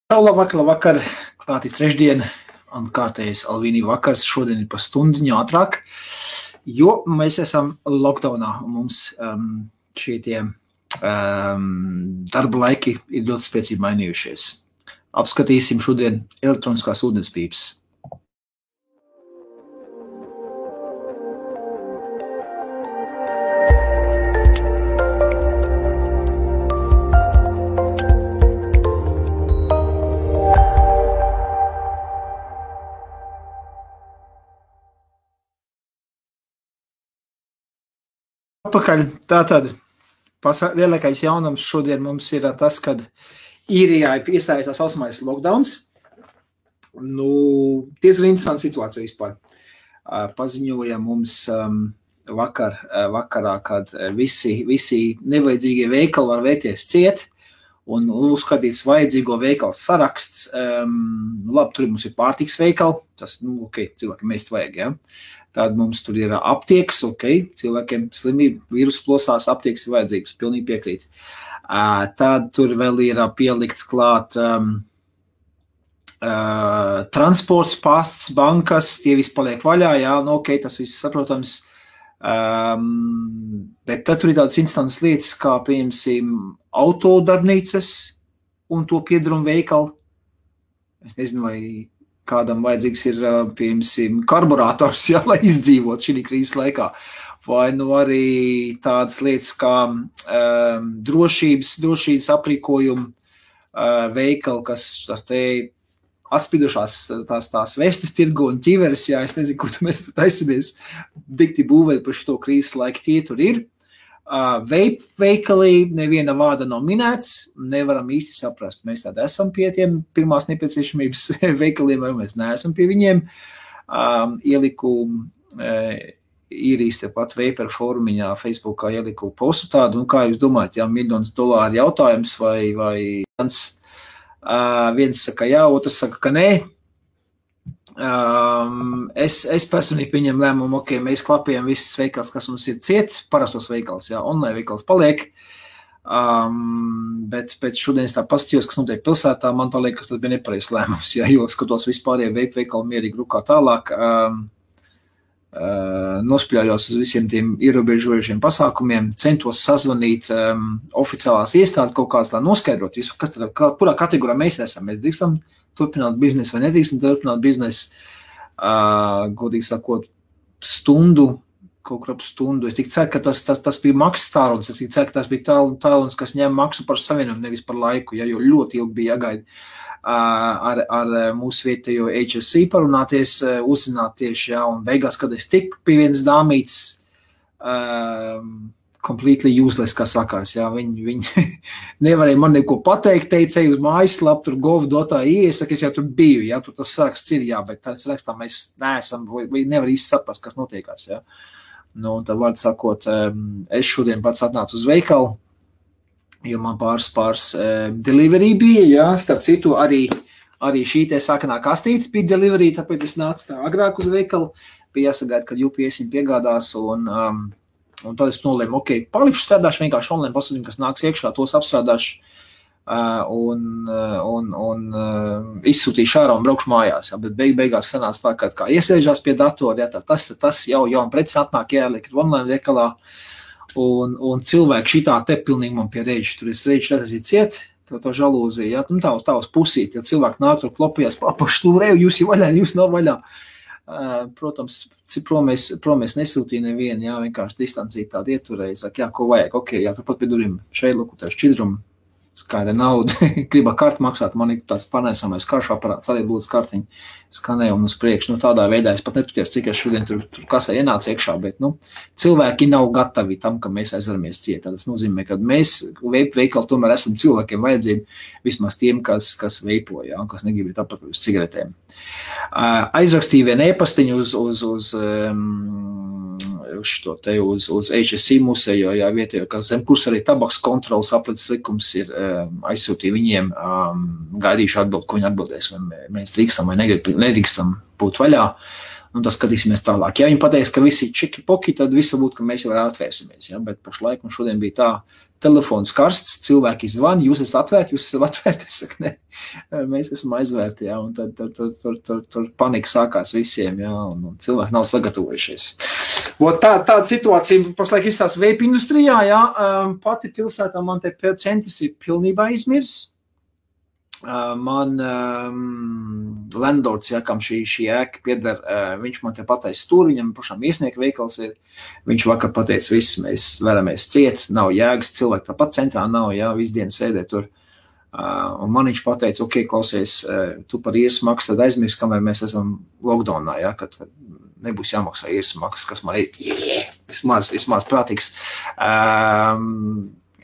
Labvakar, klāti trešdien, un kārtējais Alvīnī vakars šodien ir pa stundiņu ātrāk, jo mēs esam lockdownā, un mums šie tie darba laiki ir ļoti spēcīgi mainījušies. Apskatīsim šodien elektroniskās ūdenspīpes. Atpakaļ. Tātad lielākais jaunums šodien mums ir tas, kad Īrijā ir iestājās tā saucamais lockdowns. Diezgan interesanta situācija vispār. Paziņoja mums vakarā, kad visi nevajadzīgie veikali var vēties ciet un uzskatīts vajadzīgo veikalu saraksts. Labi, tur mums ir pārtiks veikali, tas, cilvēkiem mēs vajag, ja. Tad mums tur ir aptiekas, cilvēkiem slimība, vīrusu plosās, aptiekas ir vajadzīgas, pilnīgi piekrīt. Tad tur vēl ir pielikts klāt transports, pasts, bankas, tie visi paliek vaļā, jā, tas viss saprotams. Bet tad tur ir tādas instantas lietas, kā, piemēram, autodarbnīcas un to piedarumu veikali. Es nezinu, vai kādam vajadzīgs ir, piemēram, karburators, jā, lai izdzīvot šī krīzes laikā. Vai arī tādas lietas kā drošības aprīkojumu veikali, kas te atspidušās tās vestes tirgu un ķiveres, jā, es nezinu, kur mēs taisamies dikti būvēt par šo krīzes laiku, tie tur ir. Veikali neviena vārda nav minēts, nevaram īsti saprast. Mēs tādi esam pie tiem pirmās nepieciešamības veikaliem, vai mēs neesam pie viņiem. Ieliku Īrijas tepat Vapor forumiņā, Facebookā ieliku postu tādu, kā jūs domājat, jā, $1,000,000 jautājums vai viens saka jā, otrs saka, ka nē. Es personīgi pieņem lēmumu, mēs klapējam visas veikals, kas mums ir ciet, parastos veikals, jā, online veikals paliek, bet pēc šodien es tā paskatījos, kas notiek pilsētā, man tā liekas, tas bija nepareizs lēmums, jā, jo skatos vispārējie veikali mierīgi rukā tālāk, nospļājos uz visiem tiem ierobežojušiem pasākumiem, centos sazvanīt oficiālās iestādes kaut kāds, lai noskaidrot, kurā kategorijā mēs esam, mēs drīkstam turpināt biznesu vai nedrīkstam turpināt biznesu, godīgi sakot, kaut kur ap stundu. Es tik ceru, ka tas bija maksas tālrunis, es tik ceru, ka tas bija tālrunis, kas ņem maksu par savienojumu, nevis par laiku, ja, jo ļoti ilgi bija jāgaida ar mūsu vietējo HSC parunāties, uzzināt tieši, jā, un beigās, kad es tiku pie vienas dāmītes, completely useless, kā sakās, jā, viņi nevarēja man neko pateikt, teicēju uz mājaslapu, tur gov.ie, es jau tur biju, jā, tur tas saraksts ir, jā, bet tāds sarakstā mēs neesam, vai nevar īsti saprast, kas notiekās, jā. Un tad vārdu sakot, es šodien pats atnācu uz veikalu, jo man pāris delivery bija, jā, starp citu arī šī te sākanā kastīte bija delivery, tāpēc es nācu tā agrāk uz veikalu, bija jāsagaida, kad UPS viņu piegādās, un tad es nolēmu, palikšu strādāšu vienkārši online pasūtījumu, kas nāks iekšā, tos apstrādāšu un izsūtīšu ārā un braukšu mājās, jā, bet beigās sanāca tā, kā iesēžās pie datora, jā, tas jau preces atnāk jāliek online veikalā, un cilvēki šitā te pilnīgi man pie reģi, tur es reģi redzēju ciet, to žalūziju, jā, tā uz pusīt, ja cilvēki nāk tur klopījās, papaštūrēju, jūs jau vaļā, jūs nav vaļā. Protams, prom es nesūtīju nevienu, jā, vienkārši distancīt tādu ieturēju, saka, jā, ko vajag, jā, turpat pie durvīm, šeit, lūk, tev šķidrumu, skaida nauda, gribā karti maksāt, man ir tāds panēsamais karšu aparāts, arī būtu kartiņi, skanēju un uz priekšu, tādā veidā es pat nepatiesu, cik es šodien tur kasē ienācu iekšā, bet, cilvēki nav gatavi tam, ka mēs aizvaramies ciet, tas nozīmē, ka mēs veikali tomēr esam cilvēkiem vajadzību, vismaz tiem, kas veipo, jā, kas negrib apakaļ uz cigaretēm. Aizrakstīju vienu e-pastiņu uz HSC musejo, jā, vietējo, ka zem kurs arī tabaks kontrolas aplicis likums ir aizsūtīja viņiem, gaidīšu atbildi, ko viņi atbildēs, vai mēs drīkstam vai nedrīkstam būt vaļā. un tas skatīsimies tālāk. Ja viņi pateiks, ka visi čiki poki, tad viss varbūt, ka mēs jau atvērsimies, ja, bet pašlaik mums šodien bija tā, telefons karsts, cilvēki zvan, jūs esat atvērti, jūs esat atvērti, es saku, ne, mēs esam aizvērti, ja, un tad tur panika sākās visiem, ja, un cilvēki nav sagatavojušies. Tāda situācija pašlaik izstās vape industrijā, ja, pati pilsētā man te centis ir pilnībā izmirs. Man landlords, ja, kam šī ēka pieder, viņš man te pateica stūri, viņam pašām iesnieka veikals ir, viņš vakar pateica, viss mēs veramies ciet, nav jēgas, cilvēki tāpat centrā nav, ja, visu dienu sēdē tur, un man viņš pateica, ok, klausies, tu par īres maksu tad aizmirst, kamēr mēs esam lockdownā, ja, kad nebūs jāmaksā īres maksu, kas man ir, vismaz prātīgs,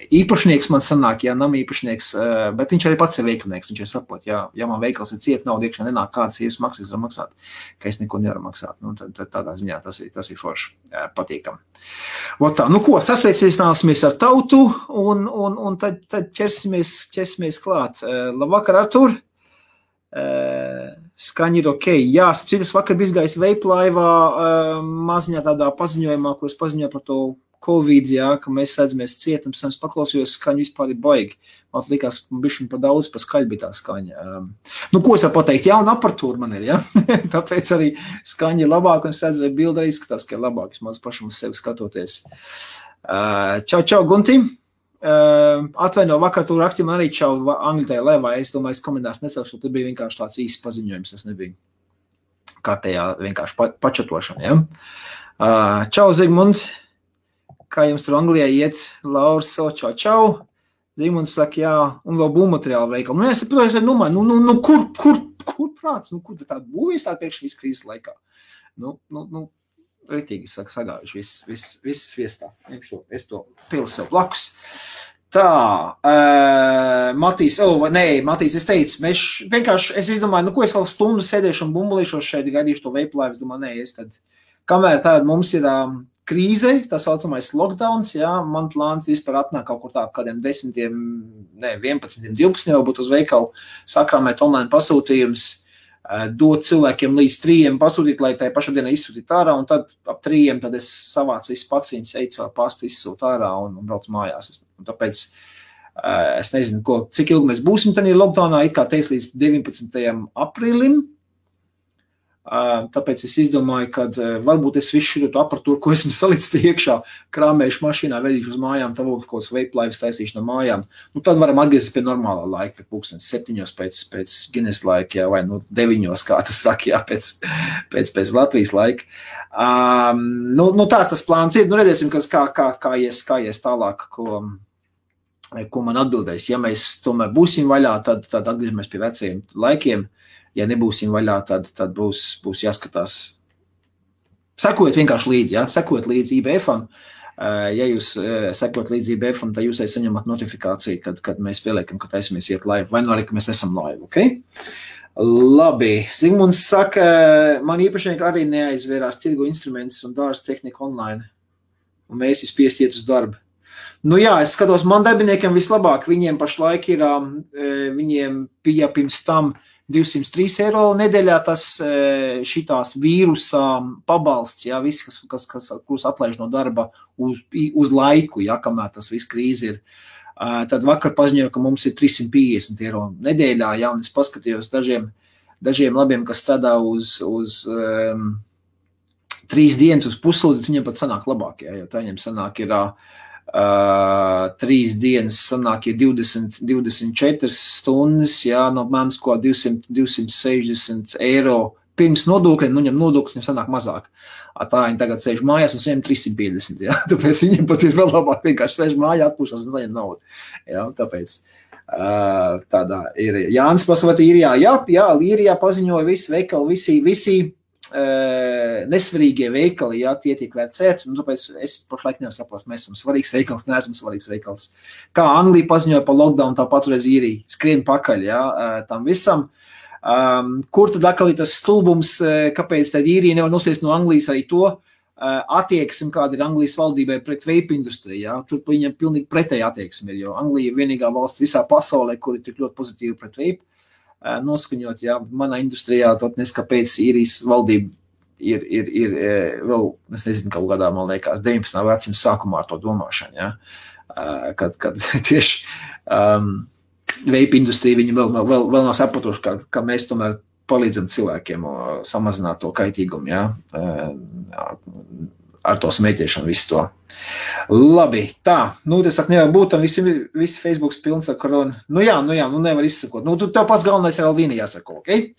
īpašnieks man sanāk, ja nam īpašnieks, bet viņš arī pats ir veikalnieks, viņš ir sapot, ja man veikals ir ciet, nav iekšā nenāk kādas īres maksas var maksāt, ka es neko nevaru maksāt, nu, tad tādā ziņā tas ir forši patīkam. Tā, nu ko, sasveicināsimies ar tautu un tad ķersimies klāt. Labvakar, Artur! Skaņi ir ok. Jā, citas vakar bija izgājis vape laivā maziņā tādā paziņojumā, kuras paziņoja par to Covid, jā, ka mēs slēdzamies ciet, un es paklausījos, skaņu vispār ir baigi. Man likās, bišķiņ pa daudz, pa skaļi bija tā skaņa. Nu, ko es varu pateikt? Jauna aparatūra man ir, ja? Tāpēc arī skaņa ir labāka, un es redzu, vai bilde arī izskatās, ka ir labāk, vismaz pašam uz sevi skatoties. Čau, Gunti. Atvaino, vakar tu rakstīju, man arī čau Anglitai lēvā, es domāju, es komentās necelšu, tur bija vienkārši tāds īsts paziņojums, tas nebija kārtējā vienkārši pačatošana, ja? Čau, Zigmund. Kā jums tur Anglijā iet, Lauris, čau. Zigmunds saka, jā, un vēl būvmateriāla veikala. Nu, es saprotu, kur prāts, kur tāda būvēs tāda pēkšņi visu krīzes laikā? Nu, retīgi sagājuši, viss sviestā. Es to pilu sev blakus. Tā, Matīs, es teicu, mēs vienkārši, es izdomāju, nu, ko es vēl stundu sēdēšu un bumbulīšos šeit, gaidīšu to vape laivu, es domāju, es tad, kamēr tāda mums ir krīze, tā saucamais lockdowns, jā, man plāns vispār atnāk kaut kur tā kādiem 10, 11, 12 jau būt uz veikalu, sakrāmēt online pasūtījums, dot cilvēkiem līdz 3 pasūtīt, lai tai pašā dienā izsūtīt ārā, un tad ap 3 tad es savācu visu paciņas, eju caur pastu, izsūt ārā un braucu mājās. Un tāpēc es nezinu, cik ilgi mēs būsim tādā lockdownā, it kā teiks līdz 19. aprīlim, tāpēc es izdomāju, ka varbūt es visu šo aparatūru, ko esmu salicis iekšā, krāmējuši mašīnā, vedīšu uz mājām, tad kaut kāds vape laivas taisīšu no mājām. Nu, tad varam atgriezties pie normālā laika, pie pulkstenes 7 pēc Guinness laika, jā, vai 9, kā tu saki, jā, pēc Latvijas laika. Nu tāds tas plāns ir. Nu, redzēsim, kā ies tālāk, ko man atbildēs. Ja mēs tomēr būsim vaļā, tad atgriežamies pie vecajiem laikiem. Ja nebūsim vaļā, tad būs jāskatās. Sekojot vienkārši līdzi, ja? Sekojot līdzi IBF-am. Ja jūs sekojat līdzi IBF-am, tad jūs arī saņemat notifikāciju, kad mēs pieliekam, ka taisamies iet laivu. Vai nu arī, ka mēs esam laivu, ok? Labi. Zigmunds saka, man īpašnieki arī neaizvērās tirgu instrumentus un dārza tehniku online. Un mēs spiest iet uz darbu. Nu jā, es skatos, man darbiniekiem vislabāk. Viņiem pašlaik ir, viņiem bija pirms tam 203 eiro nedēļā tas šitās vīrusa pabalsts, jā, viss, kurus atlaiž no darba uz laiku, jā, kamēr tas viss krīze ir. Tad vakar paziņoja, ka mums ir 350 eiro nedēļā, jā, un es paskatījos dažiem labiem, kas strādā uz 3 dienas uz puslūdzi, viņiem pat sanāk labāk, jā, jo tā viņiem sanāk ir 3 dienas sanāk ir 24 stundas, jā, no mēms ko 260 eiro pirms nodokļiem, nu ņem nodokļus, viņam sanāk mazāk. Tā viņi tagad sēž mājās un saņem 350, jā, tāpēc viņiem pat ir vēl labāk vienkārši sēž mājā, atpūšās un saņem naudu, jā, tāpēc tādā ir. Jānis pasaka, Īrijā, jā, Īrijā paziņoja visi veikali, visi nesvarīgie veikali, jā, tie tiek vērcēti, un tāpēc es pašlaik nevaru saprast, mēs esam svarīgs veikals, neesam svarīgs veikals. Kā Anglija paziņoja par lockdown, tā patreiz Īrija skrien pakaļ, jā, tam visam. Kur tad atkal ir tas stulbums, kāpēc tad Īrija nevar noslēst no Anglijas arī to attieksmi, kāda ir Anglijas valdībai pret vape industriju, jā, tur viņam pilnīgi pretēji attieksmi ir, jo Anglija ir vienīgā valsts visā pasaulē, kur ir tik ļoti pozitīvi pret vape. Noskaņot, jā, manā industrijā, tot nes kāpēc Īrijas valdība ir vēl, es nezinu, kaut kādā, man liekas, 19. vecuma sākumā ar to domāšanu, ja? Kad tieši vape industrija, viņi vēl nav sapratuši, ka mēs tomēr palīdzam cilvēkiem samazināt to kaitīgumu, ja? Ar to smēķiešanu visu to. Labi, tā, es saku, nevar būt, un visi Facebooks pilns ar koronu. Nu jā, nevar izsakot. Tev pats galvenais ir Alvīni jāsako, ok?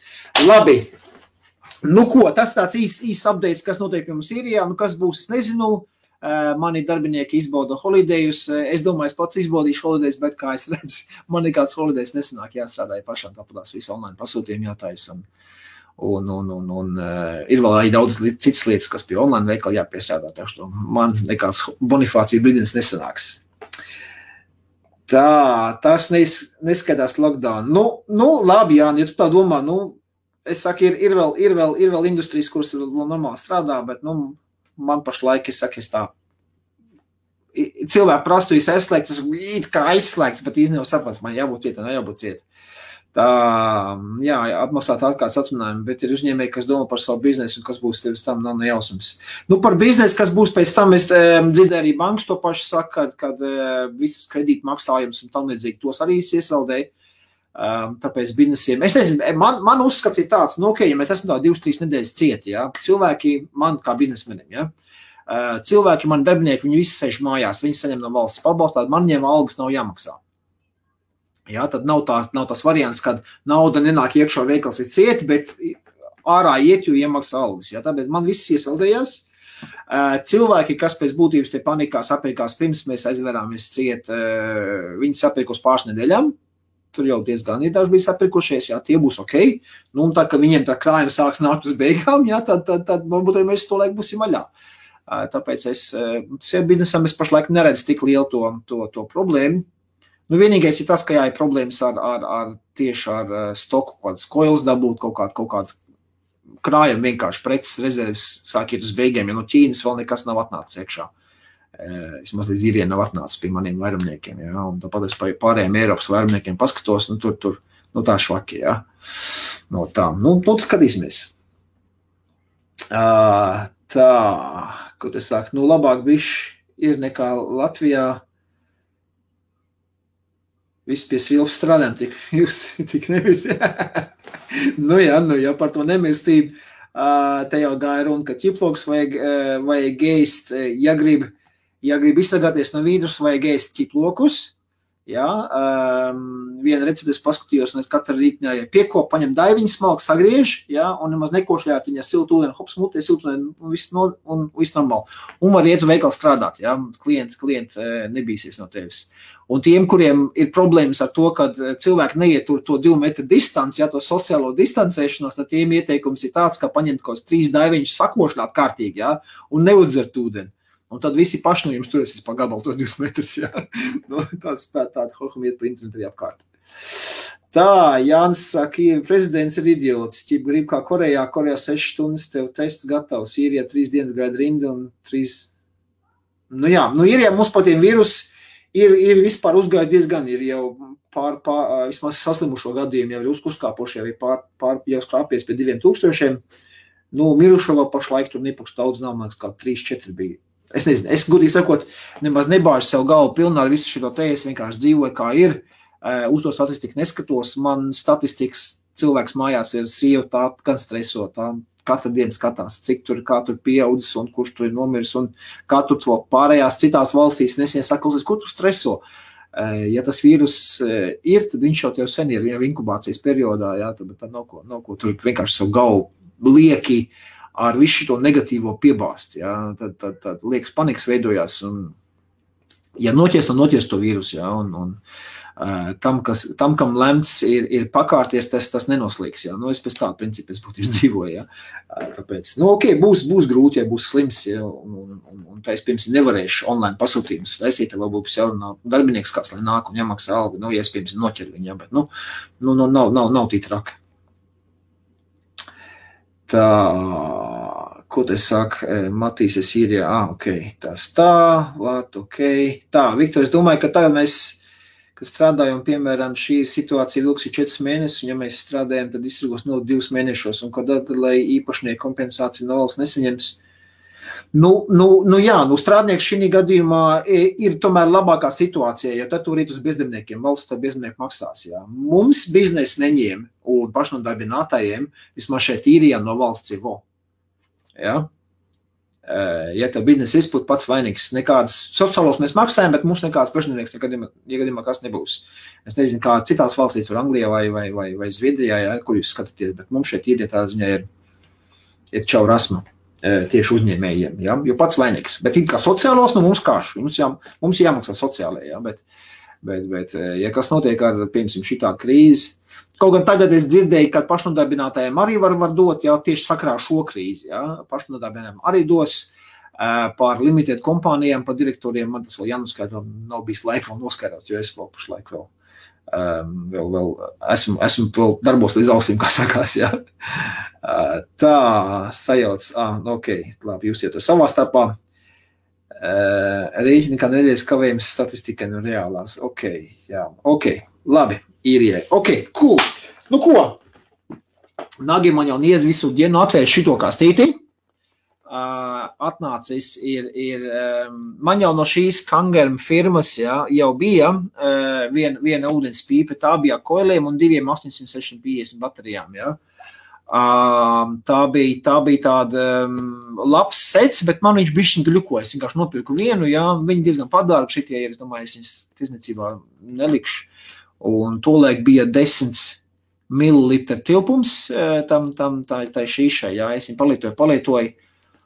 Labi, ko, tas tāds īs updates, kas notiek pie mums Sīrijā, kas būs, es nezinu, mani darbinieki izbauda holidejus, es domāju, es pats izbaudīšu holidejus, bet kā es redzu, man nekāds holidejs nesanāk, jāstrādāja pašām, tāpatās visu online pasūtījumu jātais, un ir vēl arī daudz citas lietas, kas pie online veikala jāpiestrādā, taču man nekāds bonifācija brīdienis nesanāks. Tā, tas neskatās lockdown. Labi, Jāni, ja tu tā domā, es saku, ir vēl industrijas, kuras vēl normāli strādā, bet, man pašlaik, es saku, es tā, cilvēki prastu, es aizslēgts, es it kā aizslēgts, bet īstenībā saprats, man jābūt ciet, jābūt ciet. Tā, jā, atmaksāt atkārtas atrunājumi, bet ir uzņēmēji, kas domā par savu biznesu un kas būs tevis tam, nav nejausams. Par biznesu, kas būs pēc tam, es dzirdēju arī bankas to pašu saka, kad visas kredīta maksājums un tam līdzīgi tos arī iesaldēja. Tāpēc biznesiem, es nezinu, man uzskats ir tāds, ja mēs esam tā 2-3 nedēļas cieti, ja, cilvēki man kā biznesmenim, ja, cilvēki, mani darbinieki, viņi visi sēž mājās, viņi saņem no valsts pabalstu, man viņiem algas nav jāmaksā. Ja, tad nav tas variants, kad nauda nenāk iekšā veikals ir cieti, bet ārā iet, jo iemaksā algas. Ja, tāpēc man viss iesaldējās. Cilvēki, kas pēc būtības te panikā sapirkās pirms mēs aizverāmies ciet, viņi sapirkos pāris nedēļām. Tur jau diezgan daži bija sapirkušies, jā, tie būs ok. Un tad, kad viņiem tā krājuma sāks nākt uz beigām, jā, tad varbūt arī mēs to laiku būsim vaļā. Tāpēc biznesam es pašlaik neredzu tik lielu to problēmu. Vienīgais ir tas, ka ir problēmas tieši ar stoku, kādas koilas dabūt, kaut kādu krājumu vienkārši preces rezerves sāk iet uz beigiem, ja no Ķīnas vēl nekas nav atnācis iekšā. Vismaz līdz īriem nav atnācis pie maniem vairumniekiem, ja, un tāpat es pārējiem Eiropas vairumniekiem paskatos, tur tā švaki, ja. Tā, skatīsimies. Tā, ko te sāk, labāk bišķi ir nekā Latvijā. Viss pie svilpas strādājam, tik nevis. Jā, par to nemestību. Te jau gāja runa, ka ķiploks vajag ēst, ja grib izsargāties no vīrusa, vajag ēst ķiplokus. Jā, viena receptes paskatījos, un es katru rītņā piekop, paņem daiviņu smalku, sagriež, jā, un nemaz nekošļāt viņa siltu ūdeni, hops mutē, siltu ūdeni, un viss normāli. Un var iet uz veikalu strādāt, jā, klients nebīsies no tevis. Un tiem, kuriem ir problēmas ar to, kad cilvēki neietur to 2 metru distanci, jā, to sociālo distancēšanos, tad tiem ieteikums ir tāds, ka paņemt kaut 3 daiviņus sakošļāt kārtīgi, jā, un neudzert ūdeni. Un tad visi paši no jums turēsies pa gabalu tos 2 metrus, jā. Tāda hohum iet pa internetu arī apkārt. Tā, Jānis saka, prezidents ir idiots, ķip grib kā Korejā 6 stundas, tev tests gatavs, Sīrijā 3 dienas gaida rinda un 3... ir, ja mums par tiem vīrus ir vispār uzgājis diezgan, ir jau vismaz saslimušo gadījumu, jau ir uzkāpoši, jau ir jau skrāpies pie 2000. Mirušo vēl pašlaik tur nepakš daudz nav, man kā 3-4 bija. Es nezinu, es gudīgi sakot, nemaz nebāžu sev galvu pilnā ar visu šito te, es vienkārši dzīvoju kā ir, uz to statistiku neskatos, man statistikas cilvēks mājās ir sieva tā gan stresotā, katru dienu skatās, kā tur pieaudzis un kurš tur ir nomiris un kā tur to pārējās citās valstīs nesien saklausīs, kur tu streso. Ja tas vīrus ir, tad viņš jau sen ir inkubācijas periodā, jā, tad nav ko tur vienkārši savu galvu lieki ar visu šito negatīvo piebāst, jā, tad liekas panikas veidojās, un ja noties to vīrusu, jā, un tam, kam lemts ir pakārties, tas nenoslīgs, jā, es pēc tāda principa es būtu izdzīvoju, jā, tāpēc, ok, būs grūti, ja būs slims, jā, un tā es pirms nevarēšu online pasūtījumus taisīt, vēl būs jārunā darbinieks kāds, lai nāk un jāmaksā algu, ja es pirms noķer viņu, jā, bet, nav tī traki. Tā, ko te saka, Matīs ir Sīrijā, ok, tas tā, ok. Tā, Viktor, es domāju, ka tagad mēs ka strādājam, piemēram, šī situācija vilks 4 mēnešus, un ja mēs strādājam, tad distribūs 2 mēnešos, un kad lai īpašnieku kompensāciju no valsts nesaņems. Strādnieks šī gadījumā ir tomēr labākā situācija, jo tad tur ir uz bezdarbniekiem, valsts to bezdarbnieku maksās. Jā. Mums biznesa neņem un pašnodarbinātājiem vismaz šeit īrijā no valsts ir vo. Jā. Ja tev biznesa izpūt pats vainīgs, nekādas sociālos mēs maksājam, bet mums nekāds pašnodarbnieks negadījumā kas nebūs. Es nezinu, kā citās valstīs, tur Anglijā vai Zviedrijā, jā, kur jūs skatāties, bet mums šeit īrijā tā ziņā ir čau rasma. Tieši uzņēmējiem, ja? Jo pats vainīgs. Bet kā sociālos, mums kāš, mums jāmaksā sociālajā, ja? Bet ja kas notiek ar, piemēram, šitā krīzi, kaut gan tagad es dzirdēju, ka pašnodarbinātājiem arī var dot, jau tieši sakarā šo krīzi, ja? Pašnodarbinātājiem arī dos par limited kompānijām, par direktoriem, man tas vēl jānoskaidro, nav bijis laika vēl noskaidrot, jo es vēl pašlaik vēl esmu vēl darbos līdz ausīm, kā sakās, jā. Tā, sajauc, ok, labi, jūs to savā starpā. Rēķini, kā nedēļas kavējums statistikai no reālās, ok, jā, ok, labi, īrijai, ok, cool. Nu ko? Nagi man jau niez visu dienu atvērš šito kastīti. Atnācis man jau no šīs Kangarm firmas jau bija viena ūdens pīpe, tā bija koiliem un 2 850 baterijām. Ja. Tā bija tāda labs sets, bet man viņš bišķiņ gļukoja. Es vienkārši nopirku vienu, ja, viņi diezgan padārgi šitie, es domāju, es viņas tirzniecībā nelikšu. Un tolaik bija 10 millilitru tilpums tā šīšai, ja, es viņu palietoju.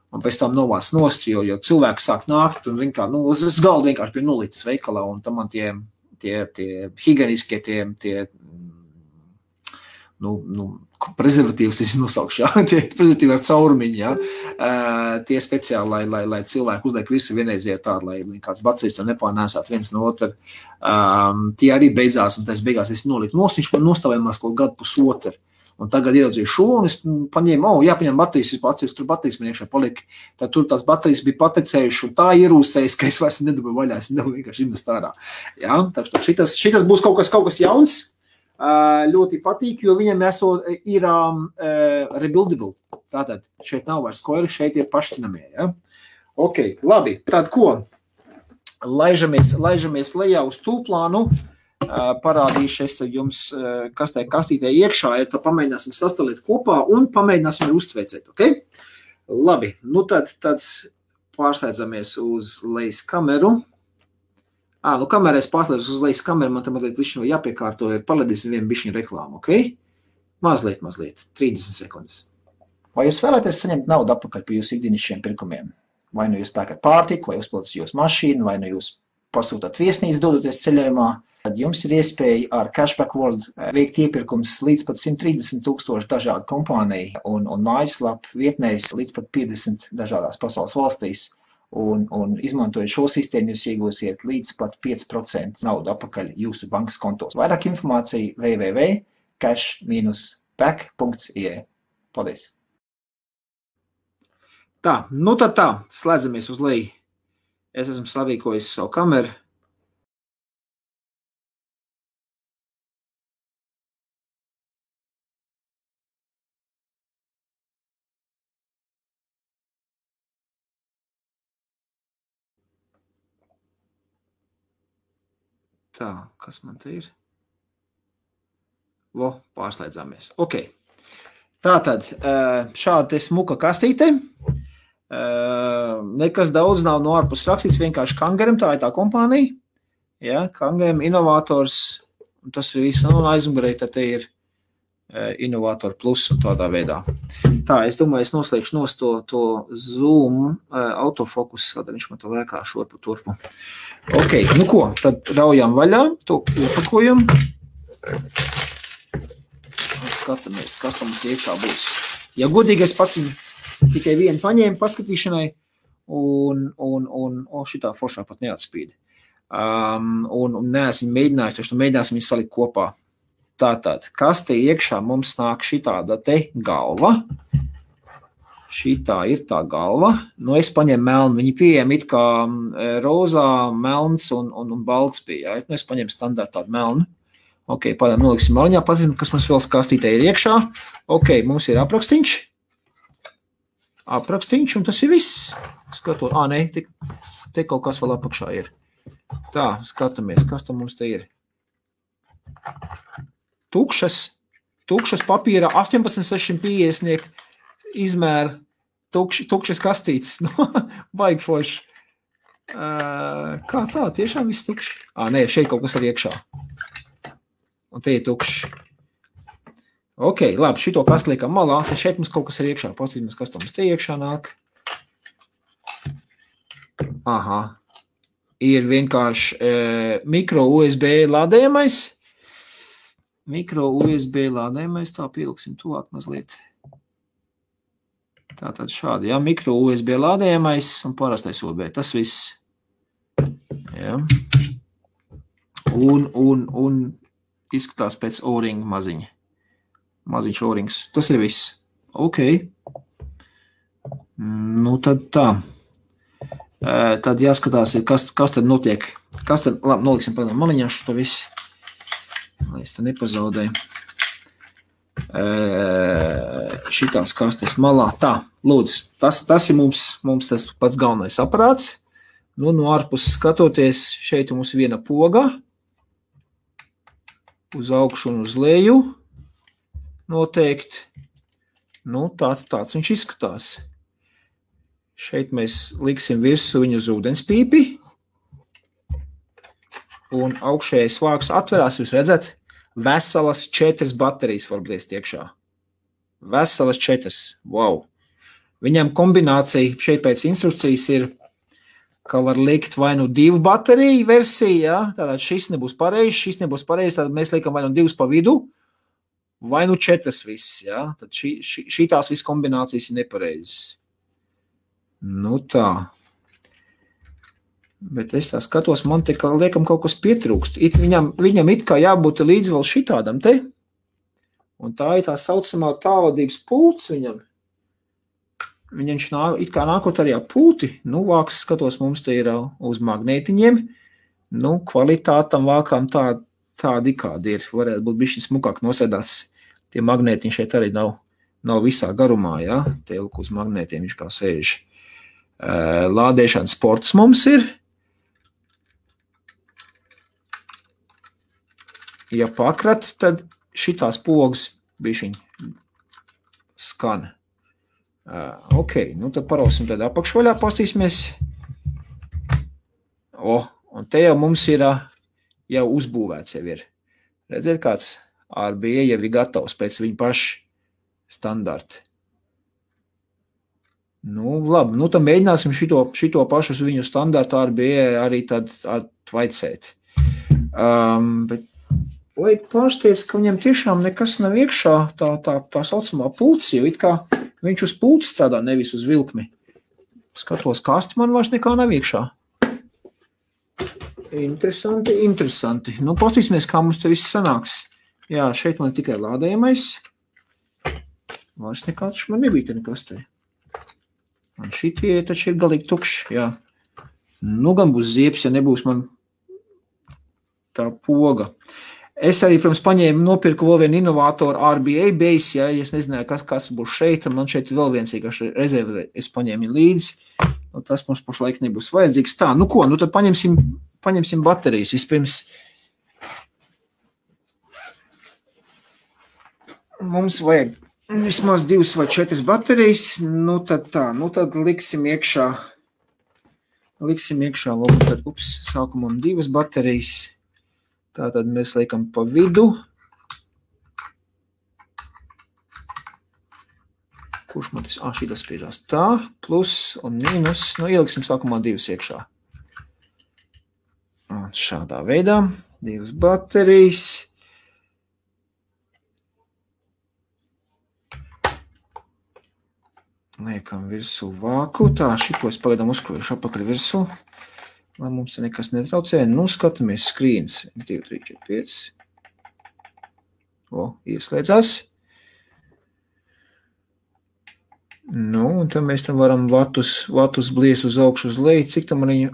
Un pēc tam novāc nost, jo cilvēki sāk nākt un uz galda vienkārši bija nolītas veikalā, un tam man tie higieniskie, prezervatīvas es nosaukšu, jā, tie prezervatīvi ar caurumiņu, jā, tie speciāli, lai cilvēki uzliek visu vienreiziet tādu, lai kāds bacerijas to nepārnēsāt viens no otru. Tie arī beidzās, un tas beigās es nolītu nost, viņš man nostāvējumās kaut gadu pusotru. Un tagad ieraudzīju šo, un es paņēmu, jāpaņem baterijas, tur baterijas man iekšā palika. Tad tur tās baterijas bija patecējuši, un tā ierūsējas, ka es vairs nedabūju vaļā, es nedabūju vienkārši invest ārā. Jā, tā šitas būs kaut kas jauns, ļoti patīk, jo viņam ir rebuildable. Tātad šeit nav vairs koili, šeit ir pašķinamie. Ja? Ok, labi, tad ko? Laižamies lejā uz tūplānu. Parādīšu es jums, kas tajā kastītē iekšā ir, tad pamēģināsim sastalīt kopā un pamēģināsim uztveicēt, ok? Labi, nu tad pārsteidzamies uz lejas kameru. Kamerā es pārsteidzu uz lejas kameru, man te mazliet višķi jāpiekārto, paledīsim vienu bišķiņu reklāmu, ok? Mazliet, 30 sekundes. Vai jūs vēlaties saņemt naudu atpakaļ par jūsu ikdienišķiem pirkumiem? Vai nu jūs pērkat pārtiku, vai uzpildat jūsu mašīnu, vai nu jūs pasūtat viesnīcu dodoties ceļojumā? Tad jums ir iespēja ar Cashback World veikt iepirkums līdz pat 130,000 dažādu kompāniju un mājaslapu vietnēs līdz pat 50 dažādās pasaules valstīs. Un izmantojot šo sistēmu, jūs iegūsiet līdz pat 5% naudu atpakaļ jūsu bankas kontos. Vairāk informācija www.cash-back.ie. Paldies! Tā, nu tad tā, slēdzamies uz leju. Es esmu sarīkojis savu kameru. Tā, kas man te ir? Pārslēdzāmies. Ok. Tātad, šāda te smuka kastīte. Nekas daudz nav no ārpus rakstīts, vienkārši Kangarm, tā ir tā kompānija. Ja, Kangarm, inovators, un tas ir viss, un aizmugurē, tad te ir Innovator Plus un tādā veidā. Tā, es domāju, es noslēgšu nost to zoom autofokus, tad viņš man to lēkā šurpu turpu. Ok, nu ko, tad raujām vaļā, to iepakojam. Skatāmies, kas tam iekšā būs. Ja godīgi, es pats tikai vienu paņēmu paskatīšanai, un šitā foršā pat neatspīd. Un neesmu mēģinājis, taču mēģināsim viņus salikt kopā. Tātad, kas te iekšā mums nāk šitāda te galva. Šitā ir tā galva. Nu, es paņemu melnu. Viņi pieejami it kā rozā, melns un balts pieeja. Nu, es paņemu standārtu tādu melnu. Ok, pādām noliksim maliņā. Patīsim, kas mums vēl kastītē ir iekšā. Ok, mums ir aprakstīņš. Aprakstīņš, un tas ir viss. Skatot, nē, te kaut kas vēl apakšā ir. Tā, skatāmies, kas tam mums te ir. Tukšas papīra 18,650 izmēra tukšas kastītes. Baigi forši. Kā tā? Tiešām viss tukši? Nē, šeit kaut kas ir iekšā. Un te ir tukši. Ok, labi, šito kastu liekam malā. Te šeit mums kaut kas ir iekšā. Pasīsimies, kas tam mums te iekšā nāk. Aha. Ir vienkārši mikro USB lādējamais. Mikro USB lādējamais, tā pieliksim tuvāk mazliet. Tātad šādi, jā, mikro USB lādējamais un parastais USB, tas viss. Jā. Un izskatās pēc O-ringa maziņa. Maziņš O-rings, tas ir viss. Ok. Nu tad tā. Tad jāskatās, kas tad notiek. Kas tad, labi, noliksim pēdām maliņā šo visu. Lai es te nepazaudēju. Šitās kastes malā. Tā, lūdzu, tas ir mums tas pats galvenais aparāts. Nu, no ārpus skatoties, šeit mums viena poga. Uz augšu un uz leju. Noteikti. Nu, tāds viņš izskatās. Šeit mēs liksim virsū viņu uz ūdenspīpi. Un augšējais vāks atverās, jūs redzat, veselas 4 baterijas var bliest iekšā. Veselas 4. Wow. Viņam kombinācija šeit pēc instrukcijas ir, ka var likt vai nu 2 bateriju versiju, ja? Tātad šis nebūs pareizs, tad mēs liekam vai nu 2 pa vidu, vai nu 4 viss, ja? Tad šitās viss kombinācijas ir nepareizes. Nu tā. Bet es tā skatos, man te kā liekam kaut kas pietrūkst. Viņam it kā jābūt līdz vēl šitādam te. Un tā ir tā saucamā tālvadības pults viņam. Viņš it kā nākot arī pulti. Nu, vāks skatos, mums te ir uz magnētiņiem. Nu, kvalitātam vākām tādi kādi ir. Varētu būt bišķi smukāk nosēdāts. Tie magnētiņi šeit arī nav visā garumā, ja? Tie lūk uz magnētiem viņš kā sēž. Lādēšana sports mums ir. Ja pakrat, tad šitās pogas bišķiņ skan. Ok, nu tad parausim tad apakšvaļā, pastīsimies. Un te jau mums ir jau uzbūvēts jau ir. Redziet, kāds RBA jau ir gatavs pēc viņa paša standarta. Nu, labi, nu tad mēģināsim šito pašu uz viņu standartu RBA arī tad atvaicēt. Bet vai pārsteidz, ka viņam tiešām nekas nav iekšā tā saucamā pults, jo it kā viņš uz pults strādā, nevis uz vilkmi. Skatos kasti, man vairs nekā nav iekšā. Interesanti. Nu, pastīsimies, kā mums te viss sanāks. Jā, šeit man tikai lādējamais. Vairs nekāds man nebija te nekas te. Un šitie taču ir galīgi tukši, jā. Nu, gan būs ziepes, ja nebūs man tā poga. Es arī, protams, nopirku vēl vienu inovātoru RBA base, ja es nezināju, kas būs šeit, un man šeit vēl viens īkaši rezervi es paņēmu līdzi. Nu, tas mums pašlaik nebūs vajadzīgs. Tā, nu ko, nu tad paņemsim baterijas. Vispirms mums vajag vismaz 2 vai 4 baterijas, nu tad liksim iekšā varbūt sākumam 2 baterijas, tātad mēs liekam pa vidu, kurš man tas, šitas spiežās tā, plus un mīnus, nu ieliksim sākumā 2 iekšā, un šādā veidā, 2 baterijas, liekam virsū vāku, tā, šito es pagaidām uzkrojuši apakaļ virsū, lai mums te nekas netraucē. Nu, skatāmies skrīns. 2, 3, 4, 5. Ieslēdzās. Nu, un tad mēs tam varam vatus bliest uz augšu uz leju. Cik tam arī...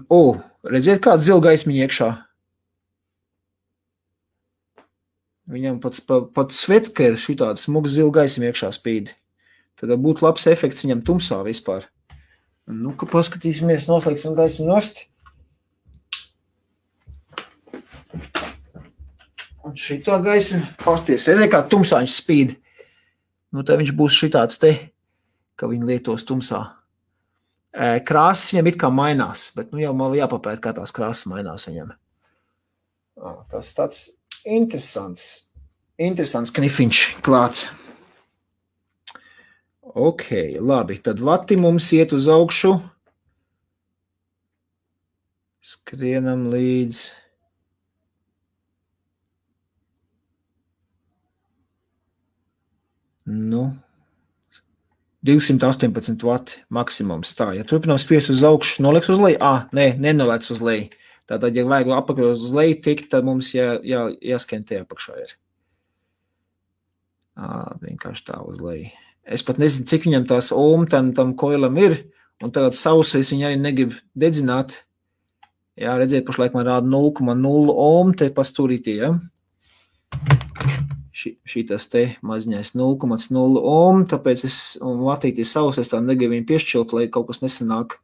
redziet, kāds zila gaismiņa iekšā. Viņam pat svetka ir šitāda smuga zila gaismiņa iekšā spīd. Tad būtu labs efekts viņam tumsā vispār. Nu, ka paskatīsimies, noslēgsim gaismu nost. Un šitā gaisma, pasties, redzēja, kā tumsā viņš spīd. Nu, tad viņš būs šitāds te, ka viņi lietos tumsā. Krāsas viņam it kā mainās, bet nu jau man jāpapēt, kā tās krāsas mainās viņam. Tas tāds interesants knifiņš klāts. Ok, labi, tad vati mums iet uz augšu. Skrienam līdz. Nu, 218 vati maksimums tā. Ja turpinām spiest uz augšu, noliks uz leju? Nenoliec uz leju. Tātad, ja vajag apakļot uz leju tikt, tad mums jāskrien tie apakšā ir. Vienkārši tā uz leju. Es pat nezinu, cik viņam tās ohm tam koilam ir, un tagad sausais viņa arī negrib dedzināt. Jā, redziet, pašlaik man rāda 0,0 ohm te pastūrītī, ja? Šitas te maziņais 0,0 ohm, tāpēc un vatītī sausais tā negribu viņu piešķilt, lai kaut kas nesanāk.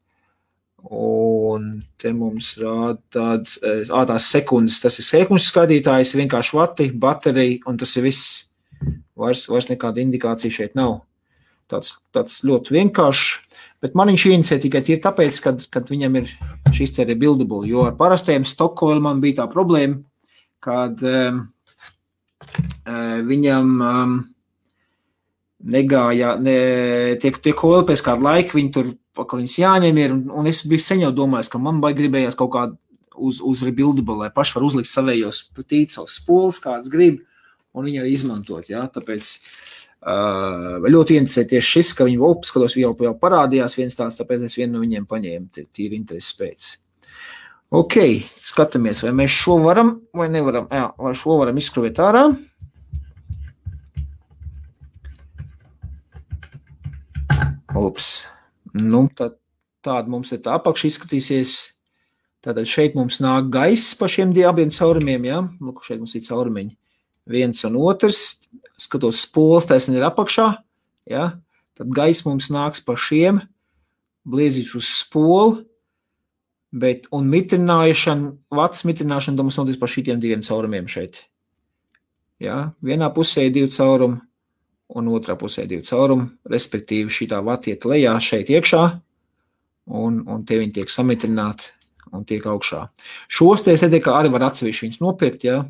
Un te mums rāda tās sekundes, tas ir sekundes skatītājs, vienkārši vati, baterija, un tas ir viss. Vairs nekāda indikācija šeit nav. Tāds ļoti vienkāršs, bet man viņš inicē tikai ir tāpēc, kad viņam ir šis te rebuildable, jo ar parastajiem Stockholm man bija tā problēma, kad viņam negāja, tie koili pēc kādu laiku, viņi tur, ka viņas jāņem ir, un es biju sen jau domājis, ka man gribējās kaut kādu uz rebuildable, lai paši var uzlikt savējos savus spoles, kāds grib, un viņi arī izmantot, jā, tāpēc ļoti interesē tieši šis, ka viņi skatos jau parādījās viens tāds, tāpēc es vienu no viņiem paņēmu, tīri intereses pēc. Ok, skatāmies, vai mēs šo varam vai nevaram, vai šo varam izskruvēt ārā. Nu, tāda mums ir tā apakša izskatīsies, tātad šeit mums nāk gaiss pa šiem abiem caurumiem, jā, lūk, šeit mums ir caurumiņi. Viens un otrs, skatos spoles, taisni ir apakšā, ja? Tad gaiss mums nāks pa šiem, bliezīs uz spolu, un vats mitrināšana mums notiks pa šitiem diviem caurumiem šeit. Ja? Vienā pusē ir 2 caurumi, un otrā pusē ir 2 caurumi, respektīvi šitā vati iet lejā šeit iekšā, un tie viņi tiek samitrināti un tiek augšā. Šos te es kā arī var atsevišķi viņus nopirkt, ja?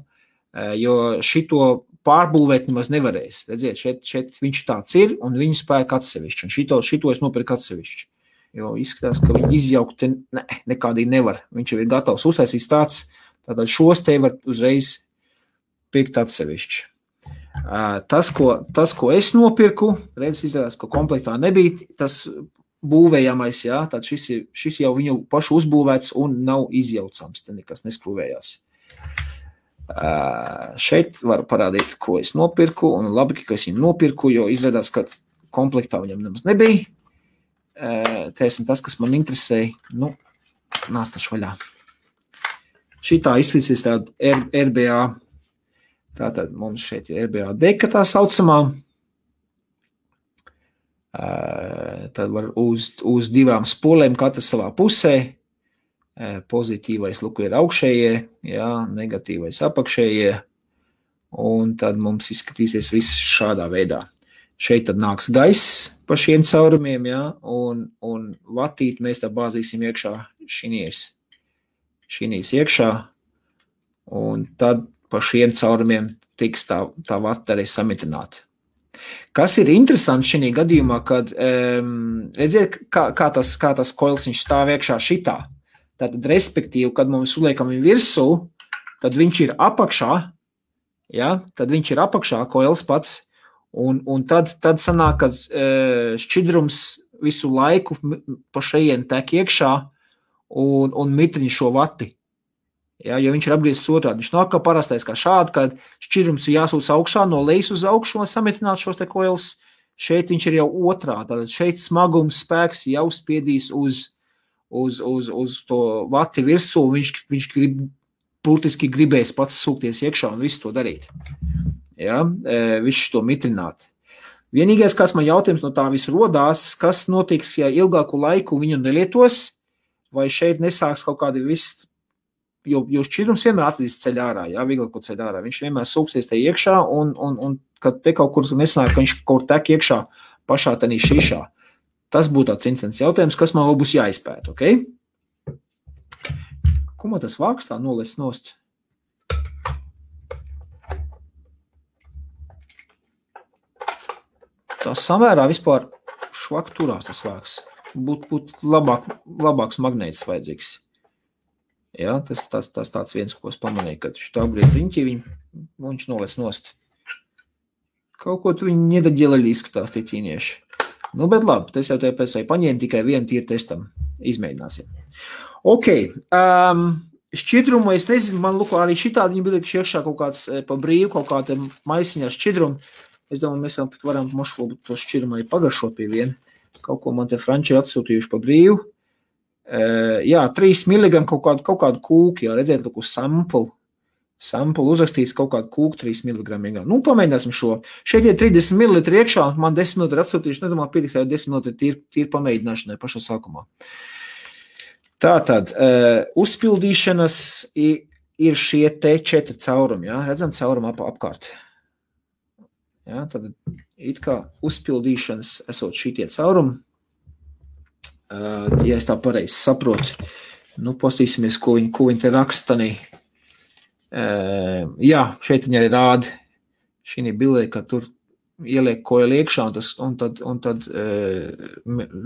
Jo šito pārbūvēt nemaz nevarēs. Redziet, šeit viņš tāds ir, un viņu spēk atsevišķi. Un šito es nopirku atsevišķi. Jo izskatās, ka viņi izjaukt nekādīgi nevar. Viņš jau ir gatavs uztaisīt tāds, tātad šos te var uzreiz pirkt atsevišķi. Tas, ko es nopirku, redz, izrādās, ka komplektā nebija, tas būvējamais, jā, tad šis jau viņu pašu uzbūvēts un nav izjaucams, te nekas neskrūvējās. Šeit var parādīt, ko es nopirku, un labi, ka es viņu nopirku, jo izrādās, ka komplektā viņam nemaz nebija. Tēsim tas, kas man interesēja, nu, nāstašu vaļā. Šitā izslīsies tādu RBA, tātad mums šeit ir RBA deka tā saucamā, tad var uz 2 spolēm katra savā pusē, pozitīvais luku ir augšējie, jā, negatīvais apakšējie, un tad mums izskatīsies viss šādā veidā. Šeit tad nāks gaiss pa šiem caurumiem, jā, un vatīt mēs tā bāzīsim iekšā šinīs iekšā, un tad pa šiem caurumiem tiks tā vata arī samitināta. Kas ir interesanti šī gadījumā, kad redziet, kā tas koils viņš stāv iekšā šitā. Tātad, respektīvi, kad mums uliekam viņu virsū, tad viņš ir apakšā, ja? Tad viņš ir apakšā, koils pats, un tad sanāk, kad šķidrums visu laiku pa šeien tek iekšā un mitriņ šo vati. Ja? Jo viņš ir apgriezis otrādi. Viņš nav kā parastais kā šādi, kad šķidrums ir jāsūs augšā, no lejas uz augšu, lai samitinātu šos te koils. šeit viņš ir jau otrā, tātad šeit smagums spēks jau spiedīs uz to vati virsū, viņš būtiski gribēs pats sūkties iekšā un visu to darīt. Ja? Visu to mitrināt. Vienīgais, kāds man jautājums no tā visu rodās, kas notiks, ja ilgāku laiku viņu nelietos, vai šeit nesāks kaut kādi viss, jo šķidrums vienmēr atradīs ceļ ārā, ja, vieglāko ceļ ārā. Viņš vienmēr sūksies te iekšā, un kad te kaut kur nesanāk, ka viņš kaut tek iekšā pašā tanī šīšā. Tas būtu tāds incidents jautājums, kas man vēl būs jāizpēt, ok? Ko man tas vāks tā nolēs nost? Tā samērā vispār švak turās tas vāks. Būt labāks magnētis vajadzīgs. Ja, tas tāds viens, ko es pamanīju, kad šitā brīd riņķi viņš nolēs nost. Kaut ko tu viņi nedaģēlēļi izskatās tie ķīnieši. Nu, bet labi, tas jau te pēc vai paņēma tikai vienu tīru testam. Izmēģināsim. Ok, šķidrumu, es nezinu, man lūko arī šitādi viņi bija iekšā kaut kāds pa brīvu, kaut kāda maisiņā ar šķidrumu. Es domāju, mēs varam mošu to šķidrumu arī pagaršot pie vienu. Kaut ko man te franči atsūtījuši pa brīvu. Jā, 3 mg kaut kādu kūku, jā, redzēt, lūk, uz sampulu uzrakstīts kaut kādu kūku 3 mg. Nu, pamēģināsim šo. Šeit ir 30 ml iekšā, man 10 ml atsūtījuši, nedomāju, pietiks jau 10 ml tīri pamēģināšanai pašā sākumā. Tātad, uzpildīšanas ir šie te 4 caurumi, jā, redzam caurumu apkārt. Ja, tad it kā uzpildīšanas esot šitie caurumi, ja es tā pareizi saprotu, nu, postīsimies, ko viņi te rakstanī. Jā, šeit viņi arī rāda šī bildē, ka tur ieliek koeli iekšā, un tad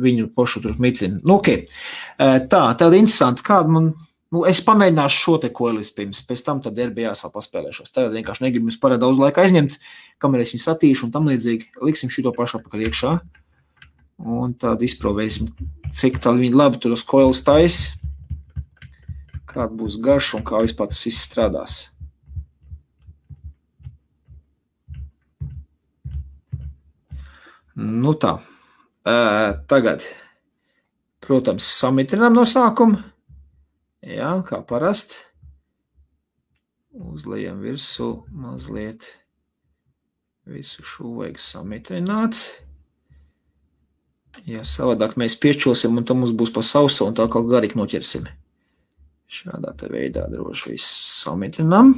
viņu pošu tur mitrina. Nu, ok. Tāda interesanti, kāda man... Nu, es pamēģināšu šo te koelis pirms, pēc tam tad RBAs vēl paspēlēšos. Tagad vienkārši negribu jums par daudz laika aizņemt, kamēr es viņu satīšu un tam līdzīgi. Liksim šito pašu apakaļ iekšā. Un tad izprovēsim, cik tad viņi labi tur uz koelis tais, kāda būs garša un kā vispār tas viss strādās. Nu tā. Tagad, protams, samitrinām no sākuma. Jā, kā parast. Uzlejam virsū mazliet. Visu šo vajag samitrināt. Ja savādāk mēs piečulsim, un tam mums būs pa sauso, un tā kaut garīgi noķersim. Šādā te veidā droši viss samitrinām.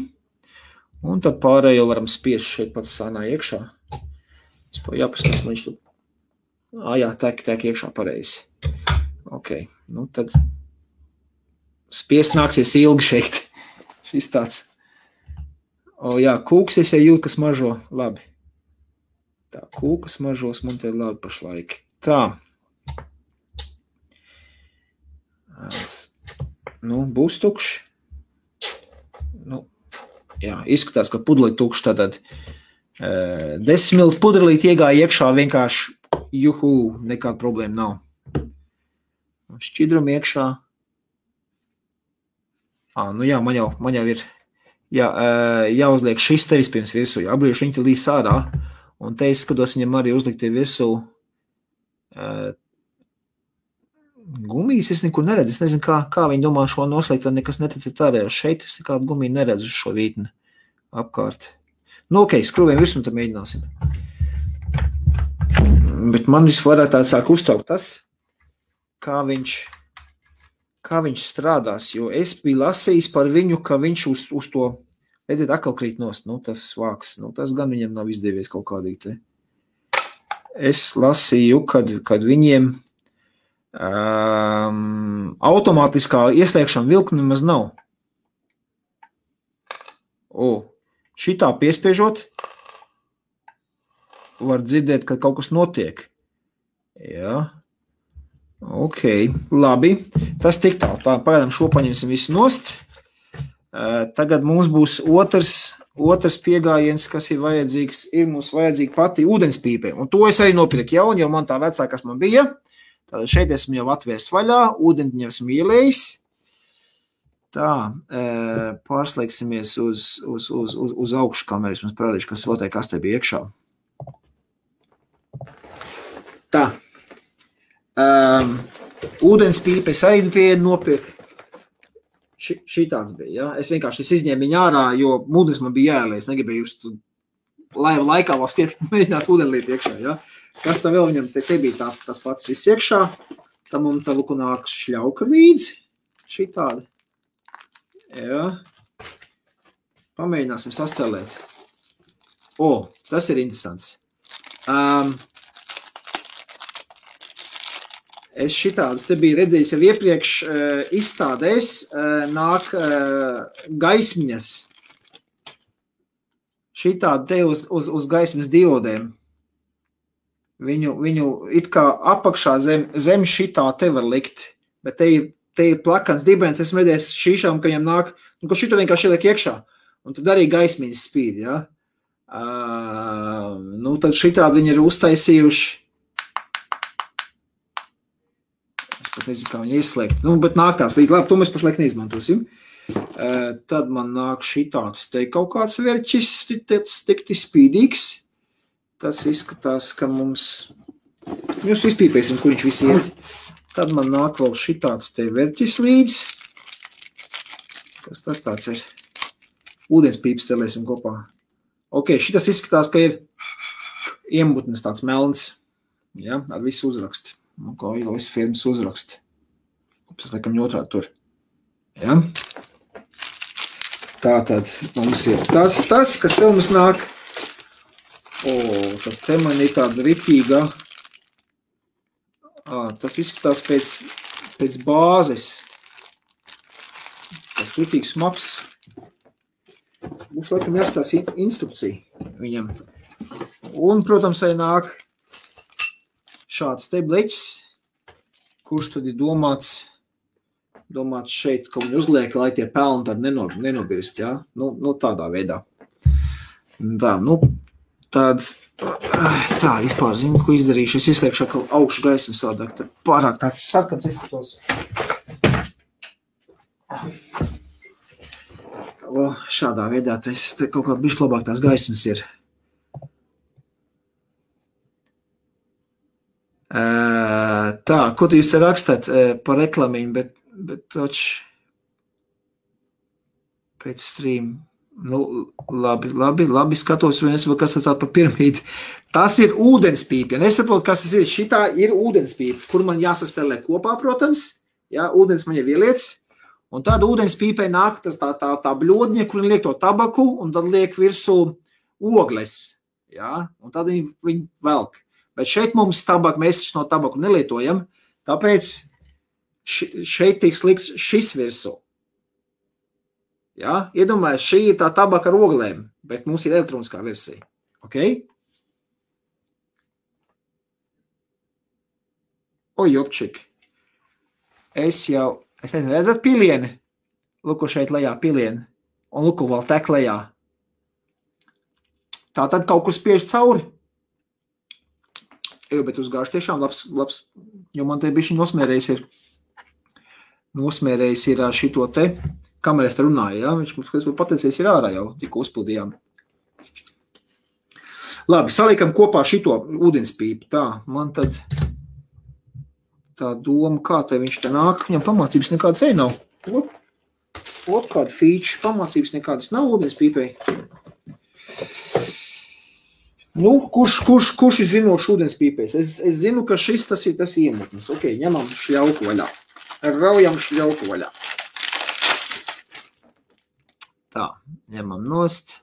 Un tad pārējo varam spiest šeit pats sānā iekšā. Vispār jāpastāst, man viņš tu... Jā, tek iekšā pareizi. Ok, nu tad... Spiest nāksies ilgi šeit. Šis tāds. Jā, kūks es jau jūtu, kas mažo. Labi. Tā, kūkas mažos man te labi pašlaik. Tā. Nu, būs tukšs. Nu, jā, izskatās, ka pudeli tukšs, tātad 10 ml pudelīt iegāja iekšā vienkārši juhu, nekāda problēma nav. Šķidrum iekšā. Nu jā, man jau ir jāuzliek šis te vispirms virsū, jābrīši viņi līdz ārā, un te es skatos viņam arī uzlikt virsū gumijas, es nekur neredzu, es nezinu, kā viņi domā šo noslēgt, tad nekas neticat ārējā. Šeit es nekādu gumiju neredzu šo vītni apkārt. Nu, ok, skrūviem virsmu, tad mēģināsim. Bet man visvairāk tā sāk uztraukt tas, kā viņš strādās, jo es biju lasījis par viņu, ka viņš uz to, redziet, atkal krīt nost, nu, tas vāks, nu, tas gan viņam nav izdevies kaut kādīgi te. Es lasīju, kad viņiem automātiskā ieslēgšana vilkni nemaz nav. Šitā piespiežot, var dzirdēt, ka kaut kas notiek. Jā. Ok, labi. Tas tik tālu. Tā, pagaidām šo paņemsim visu nost. Tagad mums būs otrs piegājiens, kas ir vajadzīgs. Ir mums vajadzīga pati ūdenspīpe. Un to es arī nopirku jaunu, jo man tā vecā, kas man bija. Tātad šeit esmu jau atvērs vaļā, ūdeni esmu ielējis. Tā, pārslēgsimies uz augšu kameras. Mums parādīšu, kas vēl te kas te bija iekšā. Ūdenspīpe es arī vienu nopirku. Šitāds bija, ja? Es vienkārši izņēmu viņu ārā, jo ūdens man bija jāielē. Es negribēju just laiva laikā vēl mēģināt ūdenlīt iekšā, ja? Kas tā vēl viņam te bija tas pats viss iekšā. Tam un tā luku nāk šļauka līdzi. Šitādi. Jā. Pamēģināsim sastelēt. Tas ir interesants. Es šitādas te biju redzējis jau iepriekš izstādēs, nāk gaismiņas. Šitādi te uz gaismas diodēm. Viņu it kā apakšā zem šitā te var likt, bet te ir plakans dibens, esmu redzējis šīšām, ka viņam nāk, ko šito vienkārši ieliek iekšā, un tad arī gaismiņas spīd, ja? Tad šitādi viņi ir uztaisījuši. Es pat nezinu, kā viņi ieslēgt. Bet nāk tās līdz, labi, to mēs pašlaik neizmantosim. Tad man nāk šitāds te kaut kāds verķis, tikti spīdīgs. Tas izskatās, ka mums... Jūs izpīpēsim, kur viņš visi iet. Tad man nāk vēl šitāds te verķis līdz. Kas tas tāds ir? Ūdenspīpes telēsim kopā. Šitas izskatās, ka ir iemutnes tāds melns. Ja, ar visu uzraksti. Kā visu firmas uzraksti. Tas laikam otrādi tur. Ja. Tātad mums ir tas, kas vēl mums nāk. Tad te man ir tāda ritīga. Tas izskatās pēc bāzes. Tas ritīgs smags. Būs laikam jāstās instrukcija viņam. Un, protams, arī nāk šāds te bleķis, kurš tad ir domāts šeit, ka viņi uzliek, lai tie pelni tad nenobirst, ja? Tādā veidā. Tā, vispār zinu, ko izdarīšu. Es izliekšu atkal augšu gaismu sādāk, tad pārāk tāds sarkans izskatos. Šādā veidā, te kaut kā bišķi labāk tās gaismas ir. Tā, ko tu jūs te rakstāt par reklamiņu, bet toč pēc stream. Labi, skatos, kas tas tā par piramīdi. Tas ir ūdenspīpe. Ja nesaprotu, kas tas ir. Šitā ir ūdenspīpe, kur man jāsastelē kopā, protams. Ja, ūdens man jau ieliec. Un tad ūdenspīpei nāk tā bļodņa, kur liek to tabaku, un tad liek virsū ogles. Ja, un tad viņi velk. Bet šeit mums tabaku, mēs no tabaku nelietojam, tāpēc šeit tiks likts šis virsū. Ja? Iedomājies, šī ir tā tabaka ar oglēm, bet mums ir elektroniskā versija. Ok? Jopčik. Es nezinu, redzat pilieni? Luku šeit lejā pilieni. Un luku vēl tek lejā. Tā tad kaut kur spiež cauri. Bet uzgājuši tiešām labs, jo man te bišķi nosmērējis ir šito te, kamerēs te runāja, ja? Viņš mums pateicies ir ārā jau, tikko uzpildījām. Labi, saliekam kopā šito ūdenspīpi, tā, man tad tā doma, kā te viņš te nāk, viņam pamācības nekādas nav. Kāda feature, pamācības nekādas nav ūdenspīpei. Kurš ir zinošs ūdenspīpēs? Es zinu, ka šis tas ir iemutnes. Ok, ņemam šļauku vaļā. Raujam šļauku vaļā. Tā, ņemam nost.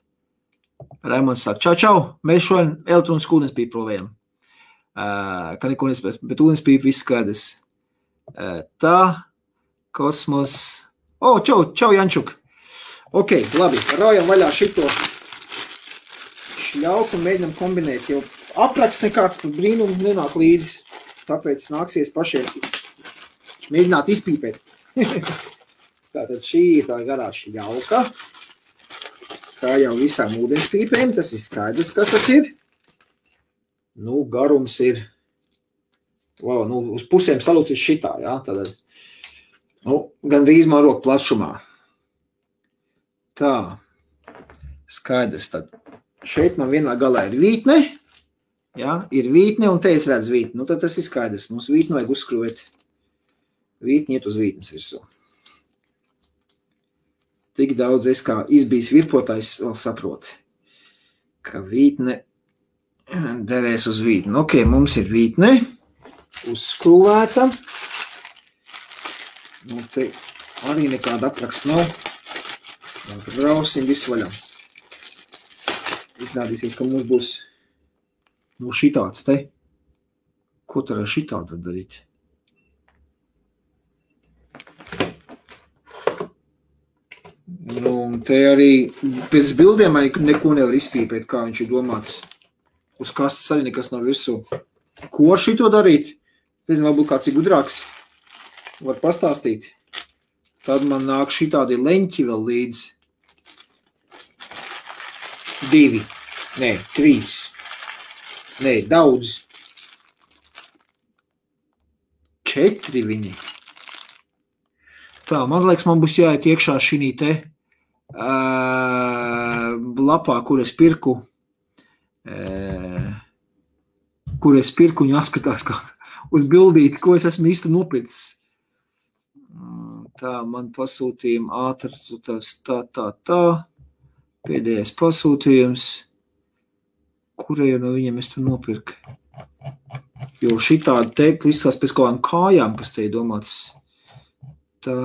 Raimonds saka, čau, mēs šodien elektronisku ūdenspīpi provējam. Ka neko nespēc, bet ūdenspīpi viss skaidrs. Tā, kosmos. Čau, Jančuk. Ok, labi, raujam vaļā šito šļauku un mēģinam kombinēt, jo apraksts nekāds par brīnumu nenāk līdzi, tāpēc nāksies pašiem mēģināt izpīpēt. Tātad šī ir tā garā šļauka, kā jau visām ūdenspīpēm, tas ir skaidrs, kas tas ir. Garums ir, uz pusēm salūcis šitā, jā, tātad, gandrīz man roku plašumā. Tā, skaidrs tad. Šeit man vienā galā ir vītne, Ja? Ir vītne un te es redzu vītni. Nu, tad tas ir skaidrs. Mums vītni vajag uzskrūvēt. Vītni iet uz vītnes virsū. Tik daudz es kā izbijis virpotājs vēl saproti, ka vītne derēs uz vītni. Ok, mums ir vītne uzskrūvēta. Nu, te arī nekāda apraksta nav. Brausim visu vaļā. Iznādīsies, ka mums būs šitāds te. Ko tad ar šitādu darīt? Nu, te arī pēc bildiem arī neko nevar izpīpēt, kā viņš ir domāts. Uz kastes arī nekas nav virsū. Ko ar šito darīt? Nezinu, varbūt kāds ir gudrāks. Var pastāstīt. Tad man nāk šitādi leņķi vēl līdz. 2. Nē, 3. Nē, daudz. 4 viņi. Tā, man liekas, man būs jāiet iekšā šī te lapā, kur es pirku un jāskatās kā uz bildīti, ko es esmu īsti nopircis. Tā, man pasūtījumi ātri, tā. Pēdējais pasūtījums. Kurēju no viņiem es tu nopirku? Jo šitādi teikt, izskatās pēc kaut kādām kājām, kas te ir domāts. Tā.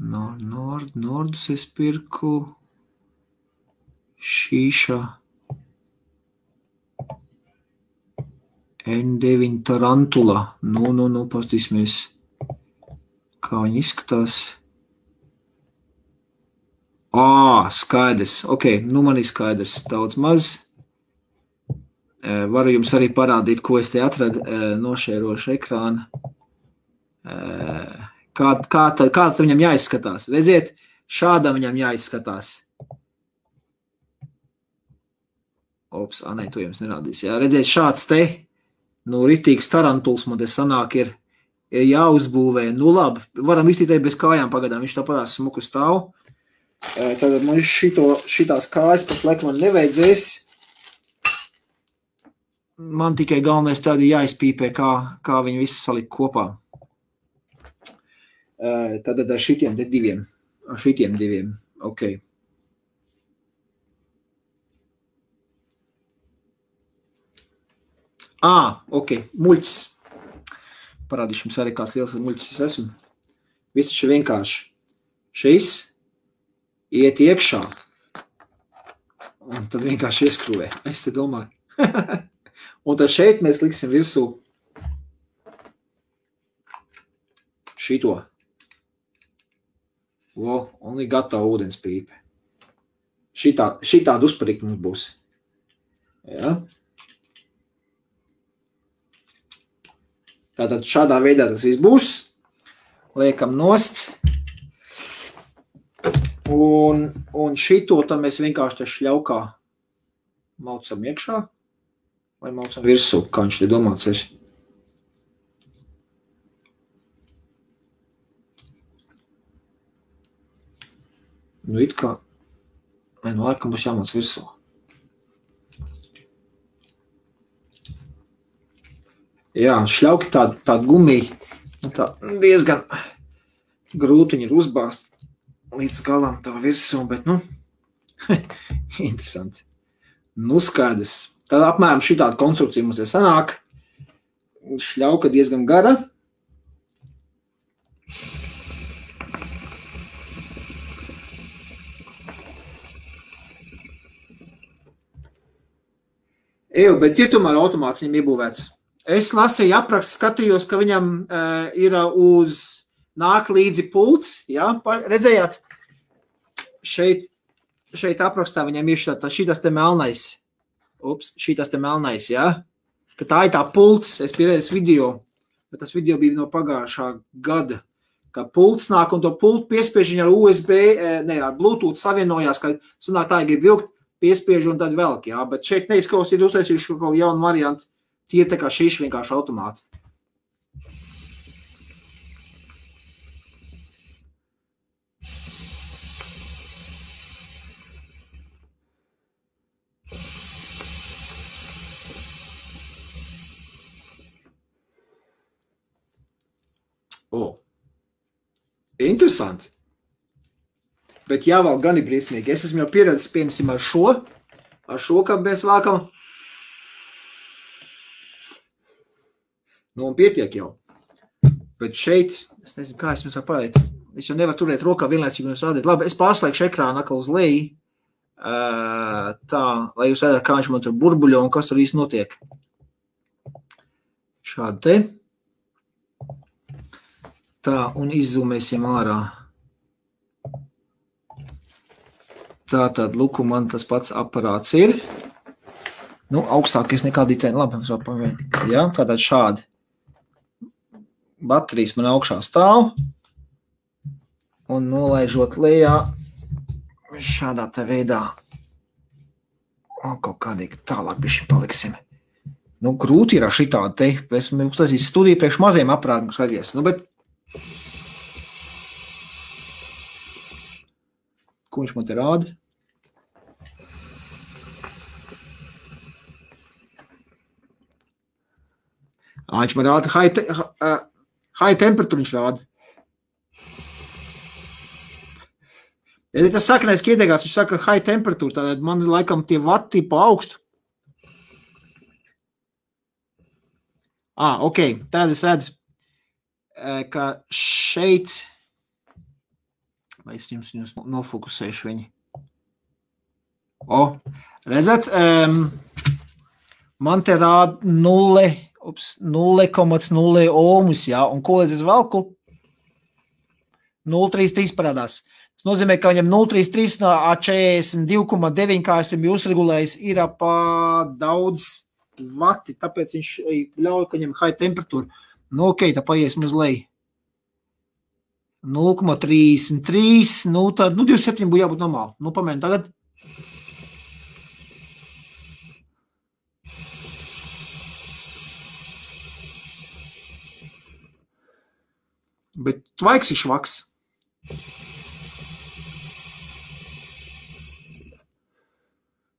Nordus es pirku. Šīša. N9 Tarantula. Nu, pastīsimies, kā viņi izskatās. Skaidrs. Ok, nu man ir skaidrs. Daudz maz. Varu jums arī parādīt, ko es te atradu nošērošu ekrānu. Kā tad viņam jāizskatās? Redziet, šādam viņam jāizskatās. Nē, to jums nerādīs. Jā, redziet, šāds te, ritīgs tarantuls man te sanāk ir jāuzbūvē. Nu labi, varam iztītēt bez kājām pagadām, viņš tāpatās smuku stāv. Tad man šitās kājas pat laik man nevajadzēs. Man tikai galvenais tādi jāizpīpē, kā viņi visi salikt kopā. Tad ar šitiem diviem. Ok. Ok, muļķis. Parādīšu jums arī kāds liels muļķis es esmu. Viss taču vienkārši. Šis iet iekšā. Un tad vienkārši ieskrūvē. Es te domāju. Un tad šeit mēs liksim virsū šito. Un ir gatava ūdens pīpe. Šitāda uzparīka mums būs. Ja? Tātad šādā veidā tas viss būs. Liekam nost. Un šito tad mēs vienkārši te šļaukā maucam iekšā. Vai maucam virsū, kā viņš te domāts ir. Nu, it kā, laikam būs jāmāc virsū. Jā, šļauki tā gumija, tā diezgan grūti viņi ir uzbāzt līdz galam tā virsū, bet, interesanti. Skaidrs. Tad apmēram šitāda konstrukcija mums te sanāk. Šļauka diezgan gara. Bet ir tomēr automāts viņam iebūvēts. Es lasīju aprakstu, skatījos, ka viņam ir nāk līdzi pults. Ja? Redzējāt? Šeit aprakstā viņam ir šitas te melnais. Šitas te melnais, ja? Ka tā ir tā pults. Es pieredzēju video, bet tas video bija no pagājušā gada. Ka pults nāk un to pultu piespiež viņa ar USB, ar Bluetooth savienojās, ka sanāk tā grib vilkt, piespiež un tad velk, jā. Bet šeit neizskaus ir uztaisījuši kaut jaunu variantu. Tie tā kā šīši vienkārši automāti. interesanti. Bet jāvalk gan ir briesmīgi. Es esmu jau pieredzis, piemēram, ar šo, kā mēs vākam. Nu, un pietiek jau. Bet šeit, es nezinu, kā es jums varu parādīt. Es jau nevaru turēt rokā vienlaicīgi jums rādīt. Labi, es pārslēgšu ekrānu atkal uz leju. Tā, lai jūs redzētu, kā viņš man tur burbuļo un kas tur īsti notiek. Šādi te. Tā, un izzūmēsim ārā. Tā tad, luku, man tas pats aparāts ir. Nu, augstākais nekā ditēni. Labi, jā, tātad šādi. Baterijas man augšā stāv. Un nolaižot lejā šādā te veidā. Un kaut kādīgi tālāk bišķi paliksim. Nu, grūti ir ar šitādi te. Esmu uztaisījis studiju priekš maziem aparātiem, skaties. Nu, bet ko viņš man te rāda? Viņš man rāda high temperatūru, viņš rāda. Ja tas sakanais ieteikās, viņš saka high temperatūra, tad man laikam tie vati pa augstu. Ok, tad es redzu, ka šeit, vai es jums nofokusēšu viņi. Redzat, man te rāda 0,0 ohmus, jā, un ko līdz es velku? 0,33 parādās. Tas nozīmē, ka viņam 0,33 no 42,9, kā esam jūs regulējis, ir pa daudz vati, tāpēc viņš ļauj, ka viņam high temperatūra. Nu, ok, tā paiesim uz leju. 0,33, nu, tad, 27 būtu jābūt normāli. Nu, pamēģinām tagad. Bet tvaiks ir švaks.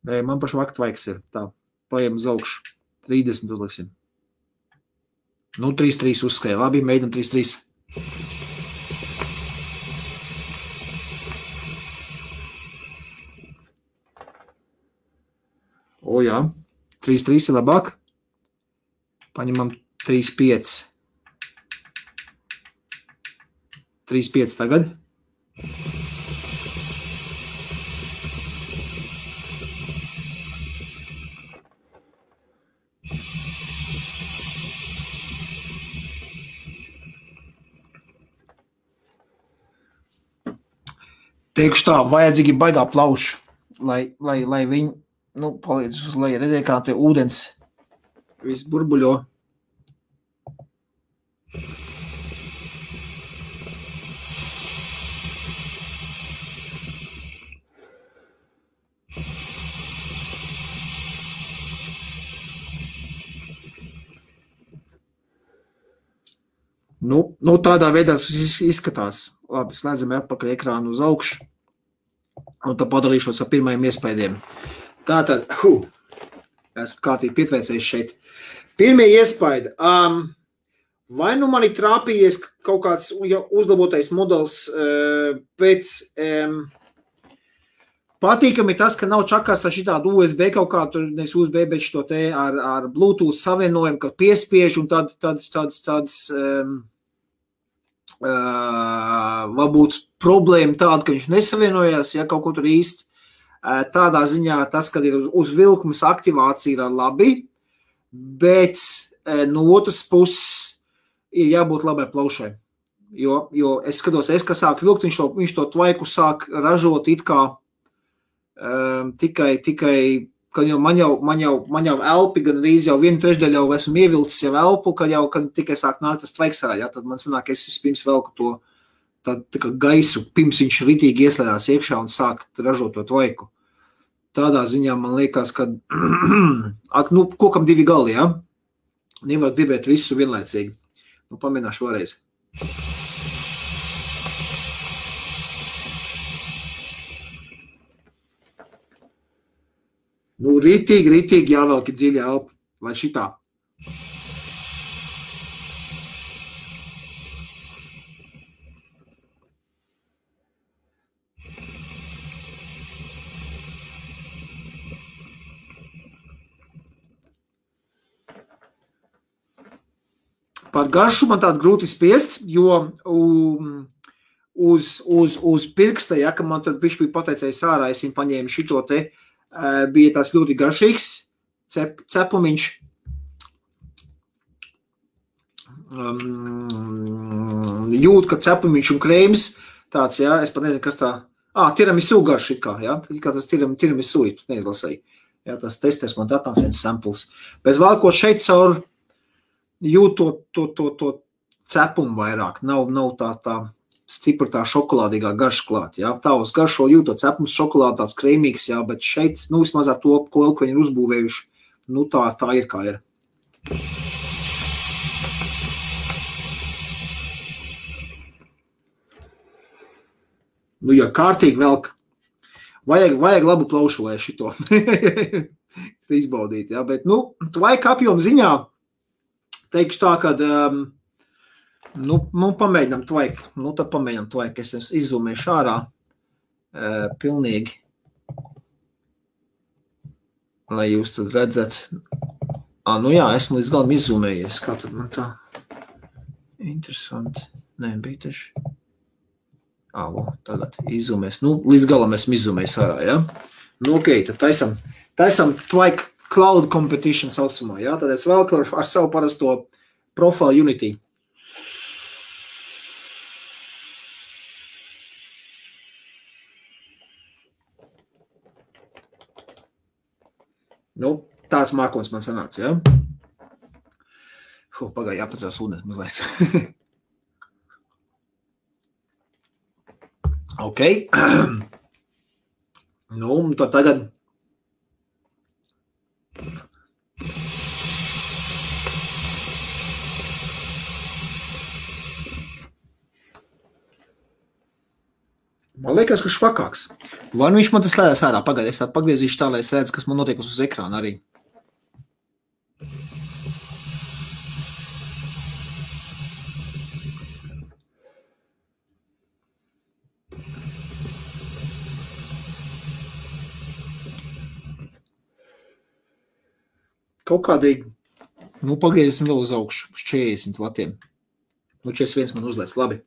Nē, man pašu vaktu tvaiks ir. Tā, paiem uz augšu. 30 uzliksim. Nu, 3,3 uzskrēja. Labi, mēģinam 3,3. Jā. 3,3 ir labāk. Paņemam 3,5. 3,5 tagad. Teikšu tā, vajadzīgi baigā plauši, lai viņi, palīdz uz leju. Redzēja, kā te ūdens viss burbuļo. Nu, tādā veidā tas izskatās. Labi, slēdzam atpakaļ ekrānu uz augšu. Un tad padalīšos ar pirmajiem iespējiem. Tātad, esmu kārtīgi pietveicējis šeit. Pirmie iespaidi. Vai nu man ir trāpījies kaut kāds uzlabotais modelis pēc patīkami tas, ka nav čakās šitādu USB kaut kā, tur nevis USB, bet šito te ar Bluetooth savienojumu, ka piespiež un tāds varbūt problēma tāda, ka viņš nesavienojās, ja kaut ko tur īsti. Tādā ziņā tas, kad ir uz vilkumas aktivācija ir labi, bet no otras puses ir jābūt labai plaušai. Jo es skatos, ka sāk vilkt, viņš to tvaiku sāk ražot it kā tikai, ka man jau elpi, gan arī jau 1/3 jau esmu ievilcis jau elpu, kad tikai sāk nākt tas tvaiks ārā, tad man sanāk, es pirms velku to tā kā gaisu, pirms viņš ritīgi ieslēdās iekšā un sāk ražot to tvaiku. Tādā ziņā man liekas, ka kokam divi gali, ja? Nevar gribēt visu vienlaicīgi. Pamēģināšu vēlreiz. Ritīgi jāvelk dziļi elpa, vai šitā. Par garšu man tādu grūti spiest, jo uz pirksta, ja, ka man tur bišķi bija pateicējis ārā, es viņu paņēmu šito te, bija tās ļoti garšīgs cepumiņš. Jūt, ka cepumiņš un krēms tāds, ja, es pat nezinu, kas tā, tiramisu garš it kā, ja, kā tas tiramisu, neizlasēju. Jā, tas testēs man datās viens samples. Bet vēl ko šeit caur jūt to cepumu vairāk. Nav tā stipra tā šokolādīgā garša klāt. Jā. Tā uz garšo jūt to cepums šokolādi tāds krēmīgs, jā, bet šeit, vismaz ar to, ko viņi ir uzbūvējuši, tā ir kā ir. Ja kārtīgi velk. Vajag labu plaušu, lai šito izbaudīt, ja, bet, tvaika apjoma ziņā, teikšu tā, kad, pamēģinām tvaiku, tad pamēģinām tvaiku, es izzūmēšu ārā, pilnīgi, lai jūs tad redzat, jā, esmu līdz galam izzūmējies, kā tad man tā, interesanti, bija taču. Tagad izzumēs. Līdz galam esmu izzumējis ārā, ja? Ok, tad taisam Twike Cloud Competition saucamā, ja? Tad es vēl ar savu parasto Profile Unity. Tāds mākons man sanāca, ja? Pagāja jāpacās ūdens mazliet. Ok. Tad tagad. Man liekas, ka švakāks. Vai viņš man tas lēdās ārā? Pagaid, es tādu pagriezīšu tā, lai es redzu, kas man notiek uz ekrāna arī. Kaut kādīgi, pagriezīsim vēl uz augšu, uz 40 vatiem. 41 man uzlēc, labi.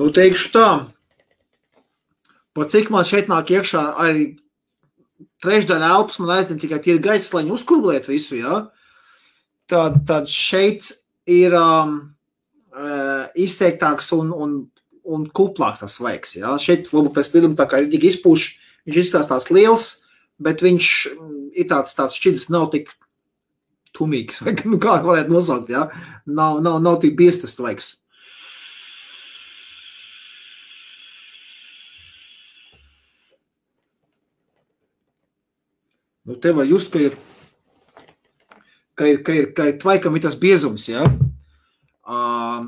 Teikšu tā, par cik man šeit nāk iekšā arī trešdaļa elpas, man aizdien tikai tie ir gaisa, lai viņi uzkurblēt visu, ja? Tad šeit ir izteiktāks un kuplāks tas svaigs, ja? Šeit varbūt pēc liduma tā kā ir tik izpūš, viņš izstāstās liels, bet viņš ir tāds šķidrs, nav tik tumīgs, vai kā varētu nosaukt, ja? Nav tik biestas svaigs. Te var just, ka ir tvaikam ir tas biezums, ja?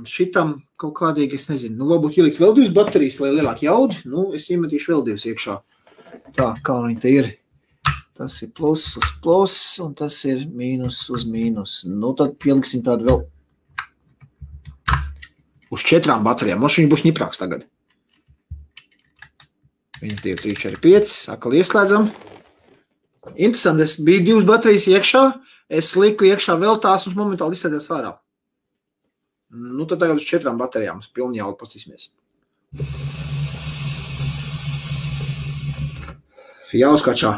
Šitam kaut kādīgi, es nezinu, varbūt ielikt vēl 2 baterijas, lai lielāk jaudi, es iemetīšu vēl 2 iekšā. Tā, kā viņi te ir. Tas ir plus uz plus, un tas ir mīnus uz mīnus. Tad pieliksim tādu vēl uz 4 baterijām. Viņš būs ņiprāks tagad. 1, 2, 3, 4, 5, atkal ieslēdzam. Interesanti, es biju 2 baterijas iekšā, es liku iekšā vēl tās un momentāli izslēdzies ārā. Tad tagad uz 4 baterijām, uz pilni jaudu pastīsimies. Jāuzkačā.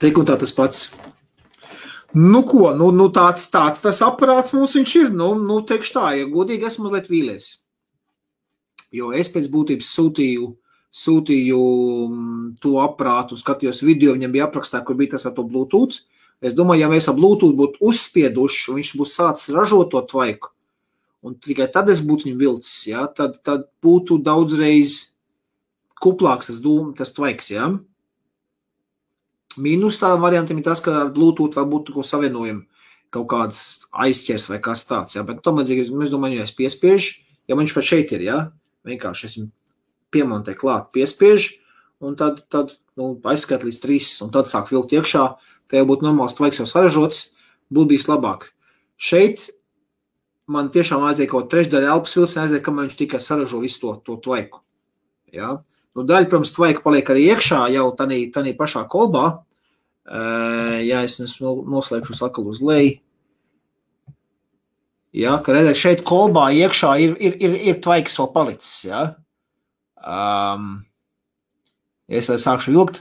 Tik un tā tas pats. Tāds tas aparāts mums viņš ir. Teikšu tā, ja godīgi esmu mazliet vīlies. Jo es pēc būtības sūtīju to aparātu, skatījos video, viņam bija aprakstā, kur bija tas ar to Bluetooth. Es domāju, ja mēs ar Bluetooth būtu uzspieduši, un viņš būs sācis ražot to tvaiku, un tikai tad es būtu viņu vilcis, ja, tad būtu daudzreiz kuplāks tas tvaiks, ja. Mīnus tādam variantam ir tas, ka ar Bluetooth var būt savienojumi kaut kāds aizķers vai kas tāds, ja, bet tomēr, es domāju, ja es piespiežu, ja viņš pat šeit ir, ja, vienkārši esmu piemontē klāt, piespiež, un tad aizskat līdz 3, un tad sāk vilkt iekšā, tā jau būtu normāls tvaiks jau saražots, būtu bijis labāk. Šeit man tiešām aiziet kaut trešdaļa elpas vilciena aiziet, kamēr viņš tikai saražo visu to tvaiku. Ja? Daļa, protams, tvaika paliek arī iekšā jau tanī pašā kolbā. Ja es noslēgšu sakal uz leju. Ja, ka redzēt, šeit kolbā iekšā ir tvaiks vēl palicis. Ja? Ja es sākšu vilkt.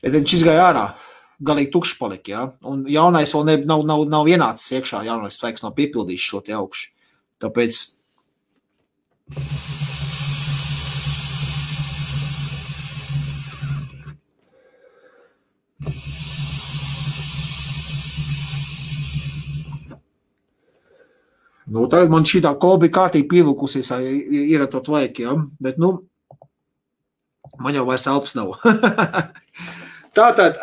Ja tad viņš izgāja ārā. Galīgi tukšs palika, ja? Un jaunais vēl nav ienācis iekšā, jaunais tvaiks nav piepildījis šo te augšu. Tāpēc tagad man šī tā kolba ir kārtīgi pievilkusies, ir ar to tvaiku, ja? Bet, man jau vairs elpas nav. Tātad,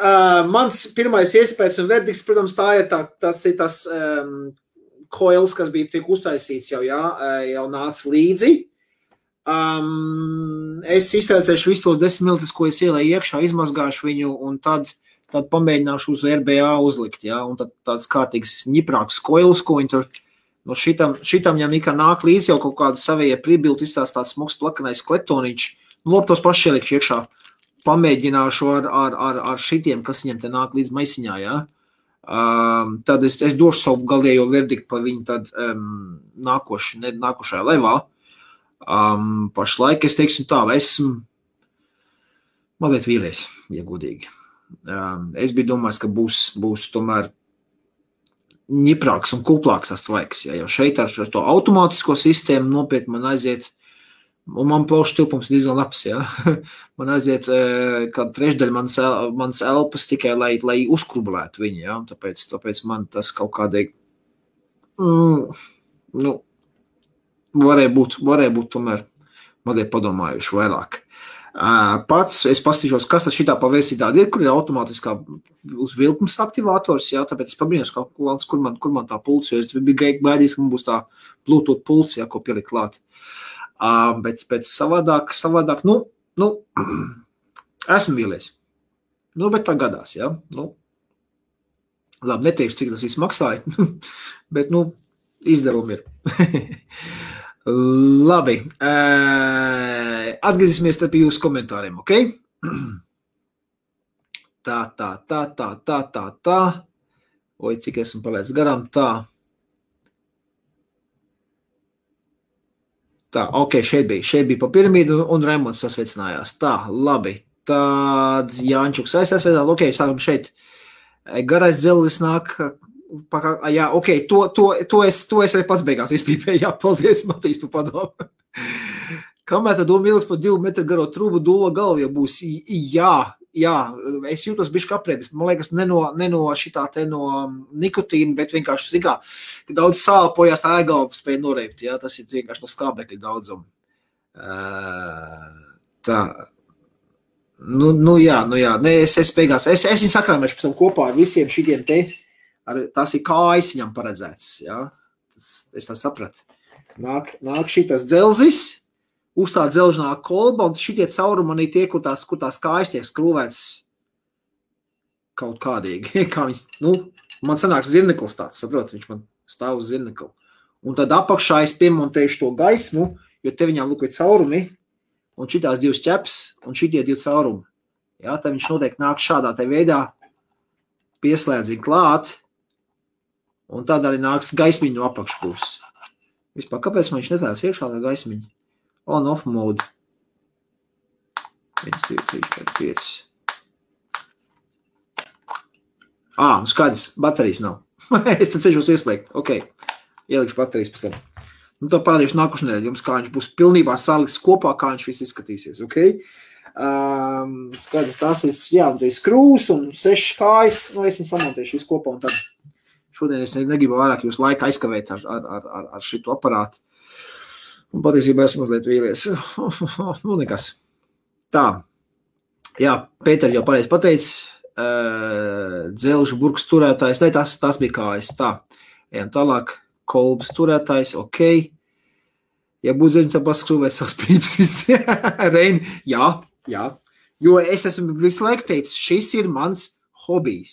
mans pirmais iespējas un verdikts, protams, tas ir tas coils, kas bija tiek uztaisīts jau nāca līdzi. Es iztaisēšu visu tos 10 ml, ko es ielēju iekšā, izmazgāšu viņu un tad pamēģināšu uz RBA uzlikt, ja? Un tad tāds kārtīgs ņiprāks coils, ko viņi tur, šitam jau nekā nāk līdzi jau kaut kādu savējie pribilti, izstās tāds smuks plakanais kletoniņš, lop tos paši ielikšu iekšā. Pamēģināšu ar šitiem, kas viņam te nāk līdz maisiņā, ja? Tad es došu savu galējo verdiktu par viņu tad nākošajā levā. Pašlaik es teiksim tā, vai es esmu mazliet vīlies, ja godīgi. Es biju domājis, ka būs tomēr ņiprāks un kuplāks tas tvaiks, ja? Jo šeit ar to automātisko sistēmu nopietni man aiziet. Un man plaušu tilpums ir diezgan labs, ja? Man aiziet kādu trešdaļu mans elpas tikai, lai uzkrublētu viņu, ja? Tāpēc man tas kaut kādīgi, varēja būt tomēr mazliet padomājuši vairāk. Pats es paskatīšos, kas tad šitā pavērsī tāda ir, kur ir automātiskā uz vilkums aktivātors, ja? Tāpēc es pabrīnos, kur man tā pults, jo es biju gaidījis, ka man būs tā Bluetooth pults, ja, ko pielikt klāt. Bet savādāk, esmu vīlies. Bet tā gadās, ja? Labi, neteikšu, cik tas viss maksāja, bet, izdevumi ir. Labi, atgriezīsimies tad pie jūsu komentāriem, ok? Tā. Oi, cik esmu palēdz garām, tā. Tā, ok, šeit bija pa piramīdu un Raimonds sasveicinājās. Tā, labi. Tad Jāņčuks aizsveicinājās. Ok, sākam šeit. Garais dzelzis nāk. Jā, ok, to es arī pats beigās izpīpēju. Jā, paldies, Matīs, par padomu. Kamēr tad doma ilgs par 2 metru garo trūbu dūlo galvu, ja būs, jā, es jūtos bišķi aprēbis. Man liekas, ne no šitā te no nikotīna, bet vienkārši zikā, ka daudz sāpojās, tā ēgalva spēja noreipt, jā, tas ir vienkārši no skābekļa daudzumu. Tā, jā, es beigās, es viņu sakrāmēšu pēc tam kopā ar visiem šitiem te, tās ir kājas viņam paredzētas, jā, es tā sapratu. Nāk šitas dzelzis, uz tā dzelžnā kolba, un šitie caurumi manī tie, kur tās kājas tiek skrūvētas kaut kādīgi. Kā viņas, man sanāks zirneklis tāds, saprot, viņš man stāv uz zirnekli. Un tad apakšā es piemontēšu to gaismu, jo te viņām lūk ir caurumi, un šitās 2 ķeps, un šitie 2 caurumi. Jā, tad viņš noteikti nāk šādā te veidā, pieslēdz viņu klāt, un tad arī nāks gaismiņu no apakšpūs. Vispār, kāpēc man viņš netās iekšā tā gaismiņa? On-off mode. 1, 2, 3, 4, 5. Skaidrs, baterijas nav. Es tad ceļos ieslēgt. Ok, ielikšu baterijas pēc tam. Tā parādīšu nākušu nedēļu jums, kā viņš būs pilnībā salikts kopā, kā viņš viss izskatīsies. Ok? Skaidrs, tās ir, jā, un te ir skrūs un 6 kājas. Es viņu samontēšu visu kopā un tad šodien es negribu vairāk jūs laika aizkavēt ar šitu aparātu. Un patiesībā esmu mazliet vīlies. Nekas. Tā. Jā, Pēter jau pareizi pateicis. Dzelžu burks turētājs. Ne, tas bija kājas. Tā. Ejam tālāk. Kolbas turētājs. Ok. Ja būtu zemes, tad paskrūvēt savas pīpas visi. Reini, jā. Jo es esmu visu laiku teicis, šis ir mans hobijs.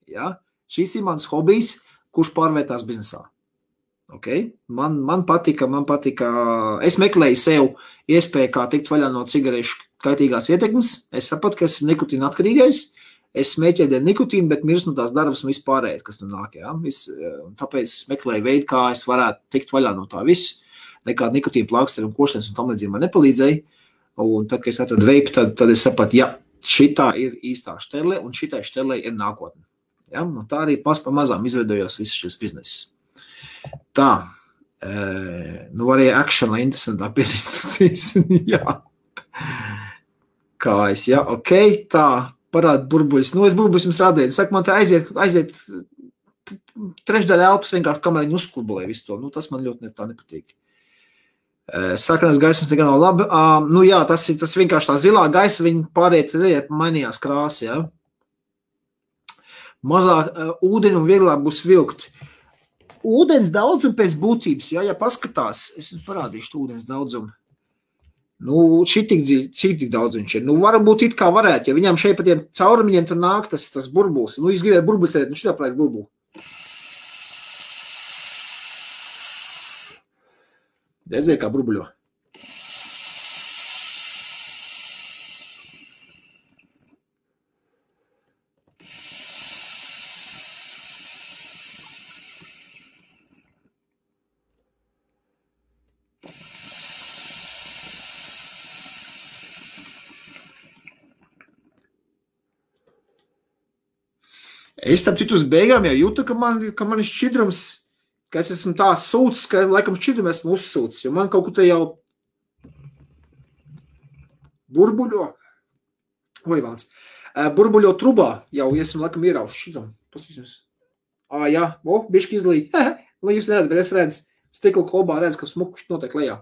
Ja? Šis ir mans hobijs, kurš pārvērtās biznesā. Okay? Man patika, es meklēju sev iespēju, kā tikt vaļā no cigarešu kaitīgās ietekmes. Es sapratu, ka esmu nikotīna atkarīgais. Es smēķēju dēļ nikotīnu, bet mirst no tās darbas un vispārējais, kas tur nāk. Ja? Tāpēc es meklēju veidu, kā es varētu tikt vaļā no tā visu. Nekāda nikotīna plāksteri un koštenes un tam līdzīgi man nepalīdzēja. Un tad, kad es atradu veipu, tad es sapratu, ja, šitā ir īstā šterle un šitai šterlei ir nākotne. Ja? Un tā arī pamazām izveidojos visu šis biznes. Tā, arī action, lai interesantāk pēc instrukcijas. Jā. Kā es, jā, ok, tā, parāda burbuļus. Es burbuļus jums rādēju. Saka, man tā aiziet trešdaļa elpas vienkārši, kamēr viņi uzkurbulē visu to. Tas man ļoti tā nepatīk. Sarkanās gaismas nekā nav labi. Jā, tas vienkārši tā zilā gaisa, viņi pāriet, mainījās krāsa, jā. Mazāk ūdeni un vieglāk būs vilkt. Ūdens daudzumu pēc būtības, ja paskatās, es parādīšu ūdens daudzumu. Cik daudz viņš ir. Varbūt it kā varētu, ja viņam šeit pa tiem caurumiņiem tur nāk tas burbulis. Jūs gribētu burbuļus tēt, šitā prāt burbuli. Redzēja, kā burbuļo. Es tam citu uz beigām jau jūtu, ka man ir šķidrums, ka es esmu tā sūcis, ka laikam šķidrumu esmu uzsūcis, jo man kaut kur te jau burbuļo trubā jau esmu laikam ierauši šķidrumu. Pastīsimies. Jā, bišķi izlīja. Lai jūs neredzat, bet es redzu, stikla kolbā redzu, ka smuku notiek lejā.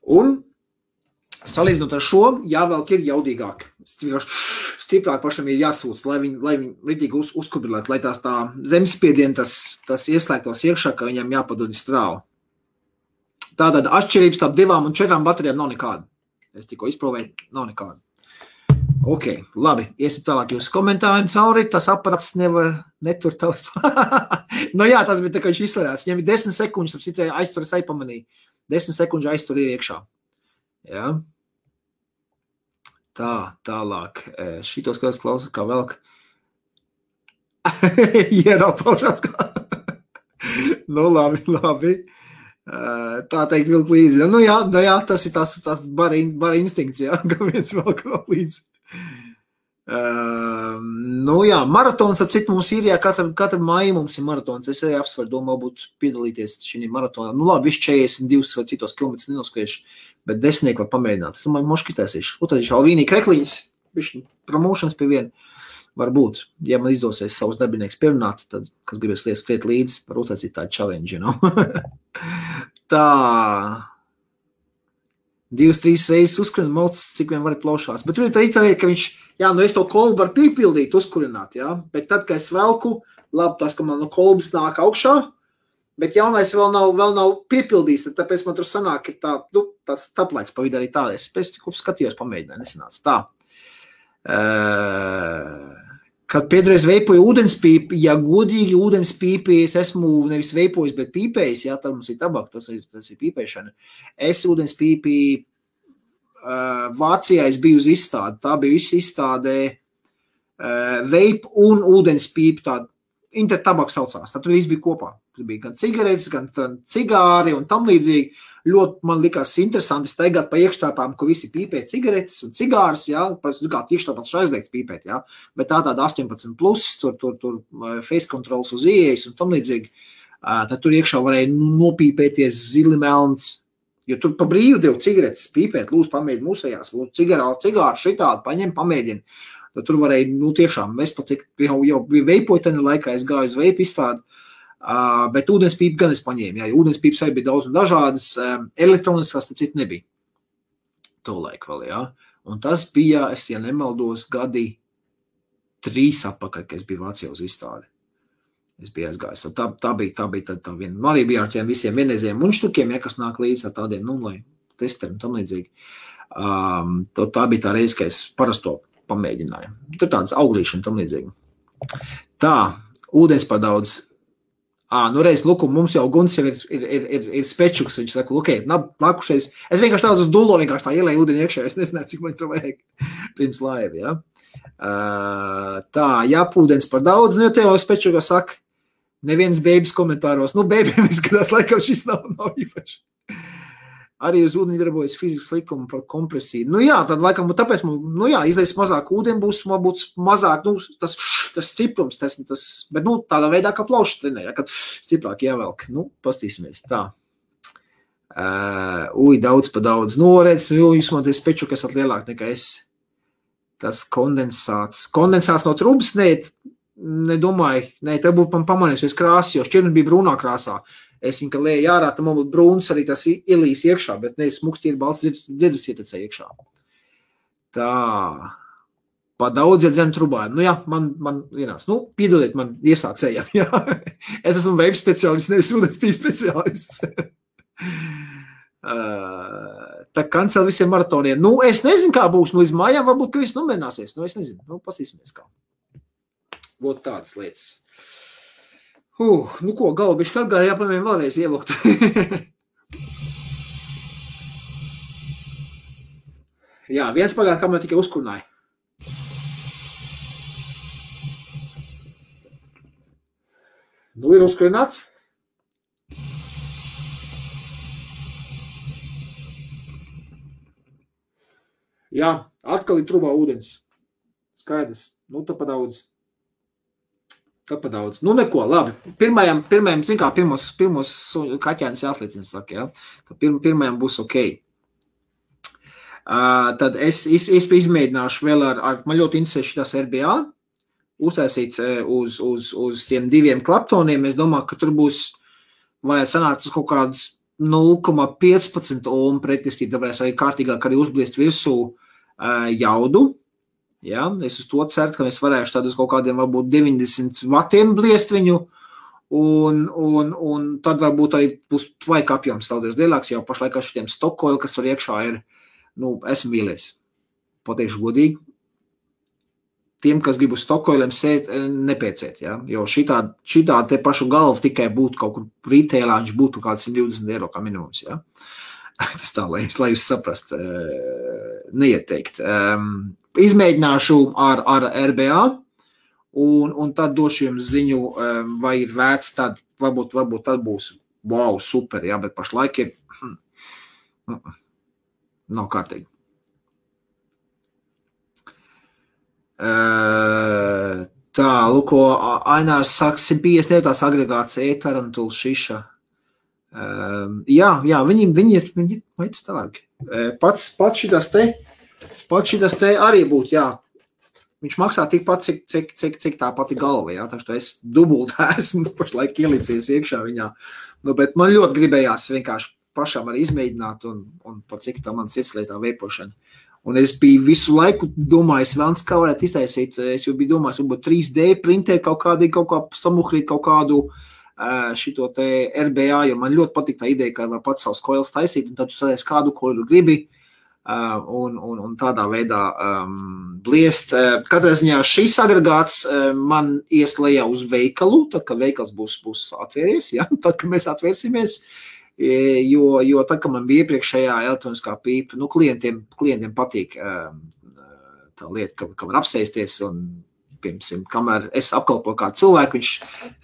Un salīdzinot ar šo, jāvelk ir jaudīgāk. Stiprāk pašam ir jāsūc, lai viņi ritīgi uzkurbulētu, lai tās tā zemspiedieni tas ieslēgtos iekšā, ka viņam jāpadod strāvu. Tātad atšķirības starp 2 un 4 baterijām nav nekāda. Es tikko izprovēju, nav nekāda. Ok, labi, iesim tālāk jūsu komentāriem cauri, tas aparats netur tavs. Jā, tas bija tā, ka viņš izslēdās. Viņam ir 10 sekundžu, tad citai aizturas aipamanīja. 10 sekundžu aiztur ir iekšā. Ja? Tā, tālāk. Šitos klausās kā velk. Ieraupaušās kā. Labi. Tā teikt vilk līdzi. Jā, tas ir tas bara instinkts, jā, ka viens velk līdzi. Maratons, ap citu mums ir, jā, katra māja mums ir maratons. Es arī apsvaru domā būt piedalīties šī maratonā. Labi, viss 42 vai citos kilometrus nenoskrieš, bet 10 var pamēģināt. Es domāju, moškitēsīšu. Tad Alvīnī krekliņas, višķi promošanas pie viena var būt. Ja man izdosies savus darbinieks pierunāt, tad, kas gribēs skriet līdzi, varbūt tas ir tā challenge, you know? Tā... 2-3 reizes uzkurina maucis, cik vien var plaušās. Bet tur ir tā itālija, ka viņš, es to kolbu varu pīpildīt, uzkurināt, bet tad, kad es velku, labi, tas, ka man no kolbas nāk augšā, bet jaunais vēl nav piepildījis, tāpēc man tur sanāk ir tā, tas taplaiks pa vidu arī tā. Es pēc tikko skatījos, pamēģināju, nesanāca tā. Kad pēdreiz veipoju ūdenspīpi, ja godīgi ūdenspīpi es esmu nevis veipojis, bet pīpējis, tad mums ir tabaka, tas ir pīpēšana. Es ūdenspīpi Vācijā es biju uz izstādi, tā bija viss izstādē veip un ūdenspīpi, tāda intertabaka saucās, tad tur viss bija kopā. Tur bija gan cigaretes, gan cigāri un tam līdzīgi. Ļoti man likās interesanti staigāt pa iekštāpām, kur visi pīpē cigaretes un cigārs, kā iekštāpās aizliegts pīpēt, bet tāda 18+, tur face controls uz ieejas un tam līdzīgi, tad tur iekšā varēja nopīpēties zili melns, jo tur pa brīvu devu cigaretes pīpēt, lūdzu pamēģini mūsējās, lūdzu cigāru šitādu, paņem, pamēģini, tad tur varēja, tiešām, es pat cik jau veipoju tani laikā, es gāju uz veipu izstādi, bet ūdenspīpi gan es paņēmu, ūdenspīpes arī bija daudz un dažādas, elektroniskās, tad citu nebija. tolaik vēl, jā. Un tas bija, es ja nemaldos, gadi 3 atpakaļ, kad es biju Vācijā uz izstādi. Es biju aizgājis. Tā bija tā viena. Man arī bija ar tiem visiem vienreizējiem muņštukiem, ja, kas nāk līdz ar tādiem, lai testeriem un tam līdzīgi. Tā bija tā reize, ka es parasto pamēģināju. Tur tādas auglīši un tam līdzīgi. Tā, ūdens par daudz. Reiz, mums jau Guns jau ir spečuks, viņš saka, nākušais. Es vienkārši tādu uz dullo, vienkārši tā ielēju ūdeni iekšā, es nezināju, cik man to vajag pirms laiva, ja. Tā, ūdens par daudz, jo tev jau spečuka saka, neviens bēbis komentāros, bēbiem izskatās, laikam šis nav īpaši. Arī uz ūdeni darbojas fizikas likuma par kompresiju. Tad laikam, tāpēc, izlies mazāk ūdeni būs, būs mazāk, tas stiprums, bet, tādā veidā, kā plaušas trenē, kad stiprāk jāvelk. Pastīsimies, tā. Daudz pa daudz. Redz, jūs man te speču, kas lielāk nekā es. Tas kondensāts. Kondensāts no trubas, nedomāju, te būtu pamanījusies krāsi, jo šķirni bija brūnā krāsā. Es viņu, ka lēju ārā, tam man būtu brūns arī tas ielīs iekšā, bet smukti ir balts dzirdas ietecē iekšā. Tā. Pa daudz iedzenu trubā. Man vienās. Piedodiet man iesācējam, jā. Es esmu veibu speciālists, nevis ūdens pīļu speciālists. Tā kancel visiem maratoniem. Es nezinu, kā būs. Līdz mājām varbūt, ka viss nomierināsies. Es nezinu. Pasīsimies kā. Būtu tādas lietas. Galva bišķi atgāja, jāpamēm vēlreiz ielukt. Jā, viens pagāja, kā man tikai uzkurināja. Ir uzkurināts. Jā, atkal ir trubā ūdens. Skaidrs. Tā pa daudz. Tāpēc daudz. Neko, labi. Pirmajam, zin kā, pirmos kaķēnis jāsliecina, saka, ja? Pirmajam būs ok. Tad es izmēģināšu vēl man ļoti interesē šitās RBA, uztaisīt uz tiem 2 klaptoniem. Es domāju, ka tur būs, varētu sanākt uz kaut kādas 0,15 ohm pretestība, tāpēc arī kārtīgāk arī uzbliest virsū jaudu. Ja, es uz to ceru, ka mēs varēšu tad uz kaut kādiem varbūt 90 vatiem bliest viņu, un tad varbūt arī būs tvaika apjoms daudz lielāks, jo pašlaik ar šitiem stokoili, kas tur iekšā ir, esmu vīlies. Pateikšu godīgi. Tiem, kas grib uz stokoiliem sēt, nepēcēt, ja, jo šitā te pašu galvu tikai būtu kaut kur retailā, viņš būtu kāds 120 eiro kā minimums, ja. Tas tā, lai jūs saprast, neieteikt. Izmēģināšu ar RBA un tad došu jums ziņu, vai ir vērts tad, varbūt tad būs wow, super, jā, bet pašlaik ir nav kārtīgi. Tā, lūko, Ainārs saka, 150 eiro tās agregāts e-tarantuls šiša. Jā, viņi ir veids tālāk. Pats šitas te arī būtu, jā. Viņš maksā tikpat, cik tā pati galva, jā. Tā, es dubultā esmu pašlaik ielicies iekšā viņā. Bet man ļoti gribējās vienkārši pašām arī izmēģināt un par cik tā man sirdslietā veipošana. Un es biju visu laiku domājis, vēlns, kā varētu iztaisīt. Es jau biju domājis, varbūt 3D printēt kaut kā samuhrīt kaut kādu šito te RBA, jo man ļoti patīk tā ideja, ka var pats savus koilas taisīt, un tad tu sadies kādu koilu gribi, un tādā veidā bliest. Katrā ziņā šis agregāts man ies lejā uz veikalu, tad, kad veikals būs atvieries, ja? Tad, kad mēs atvērsimies, jo tad, kad man bija iepriekšējā elektroniskā pīpa, klientiem patīk tā lieta, ka var apsēsties un piemēram, kamēr es apkalpoju kādu cilvēku, viņš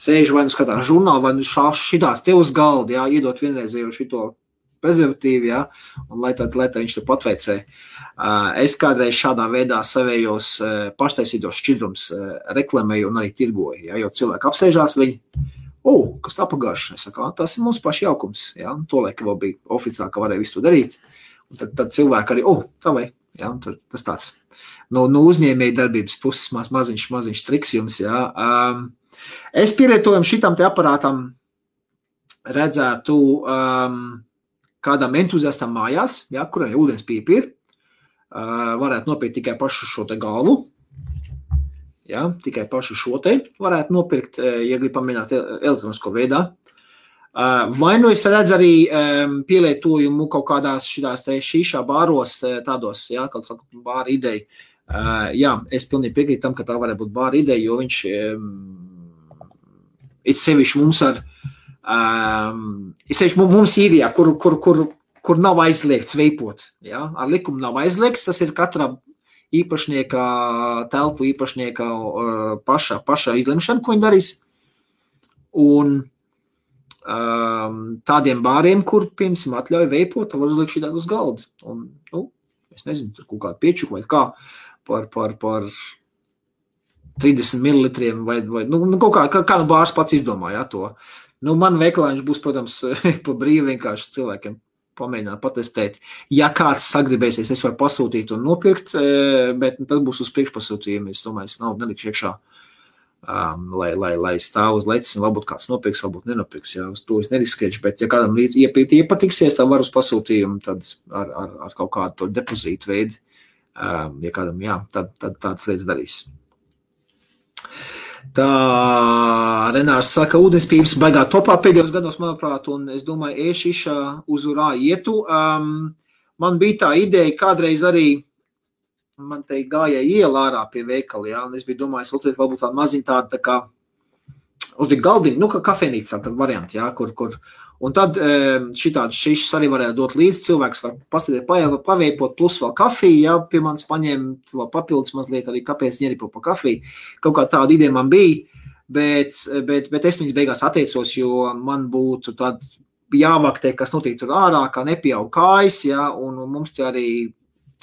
sēž vai skatās žurnālu, vai šitās te uz galda, jā, iedot vienreizēju šito prezervatīvu, jā, un lai viņš te patveicē. Es kādreiz šādā veidā savējos paštaisītos šķidrums reklamēju un arī tirgoju, jā, jo cilvēki apsēžās viņi, kas tā pagājuši, es saku, tas ir mums paši jaukums, jā, un to laika vēl bija oficiāli, ka varēja visu to darīt, un tad cilvēki arī, tā vai, jā, tas tāds. No uzņēmēja darbības puses maziņš triks jums, jā. Es pielietojam šitam te aparātam redzētu kādam entuziastam mājās, jā, kuram ūdens pīpa ir, varētu nopirkt tikai pašu šo te galvu. Ja, tikai pašu šo te varētu nopirkt, ja grib pamēģināt elektronisko veidā. Vai nu es redzu arī pielietojumu kaut kādās šitās te šīšā bāros, tādos, ja, kaut bāra ideja. Jā, es pilnīgi piekrītu tam, ka tā varētu būt bāra ideja, jo viņš ir sevišķi mums mums īrijā, kur nav aizliegts veipot. Ja? Ar likumu nav aizliegts, tas ir katra īpašnieka, telpu īpašnieka paša izlemšana, ko viņi darīs. Un tādiem bāriem, kur, piemēram, atļauj veipot, var uzlikt šī uz galda. Un, es nezinu, tur kaut kādu piečuku vai kā par 30 mililitriem vai kaut kā nu bārs pats izdomāja to. Man veikalā viņš būs, protams, pa brīvi vienkārši cilvēkiem pamēģināt patestēt. Ja kāds sagribēsies, es varu pasūtīt un nopirkt, bet tad būs uz priekšpasūtījumu. Es domāju, es naudu nelikšu iekšā, lai stāv uz lecis un varbūt kāds nopirks, varbūt nenopirks. Ja, uz to es neriskēšu, bet ja kādam iepatiksies, tā var uz pasūtījumu, tad ar kaut kādu to depozītu veidu, ja kādam, jā, tad tāds lietas darīs. Tā Renārs saka, ūdenspības baigā topā pēdējos gados, manuprāt, un es domāju, ēšišā uzurā ietu. Man bija tā ideja, kādreiz arī man te gāja iela ārā pie veikali, jā, un es biju domājis, varbūt tāda maziņa tāda, tā kā uzlikt galdiņu, kā kafejnīca tāda varianti, jā, kur un tad šitādas šišas arī varētu dot līdzi, cilvēks var pasēdēt, paveipot, plus vēl kafiju, jā, pie manis paņemt vēl papildus mazliet arī, kāpēc ņeripo pa kafiju. Kaut kā tāda ideja man bija, bet es viņas beigās atteicos, jo man būtu tad jāvaktē, kas notiek tur ārā, kā nepieaug kājas, jā, un mums te arī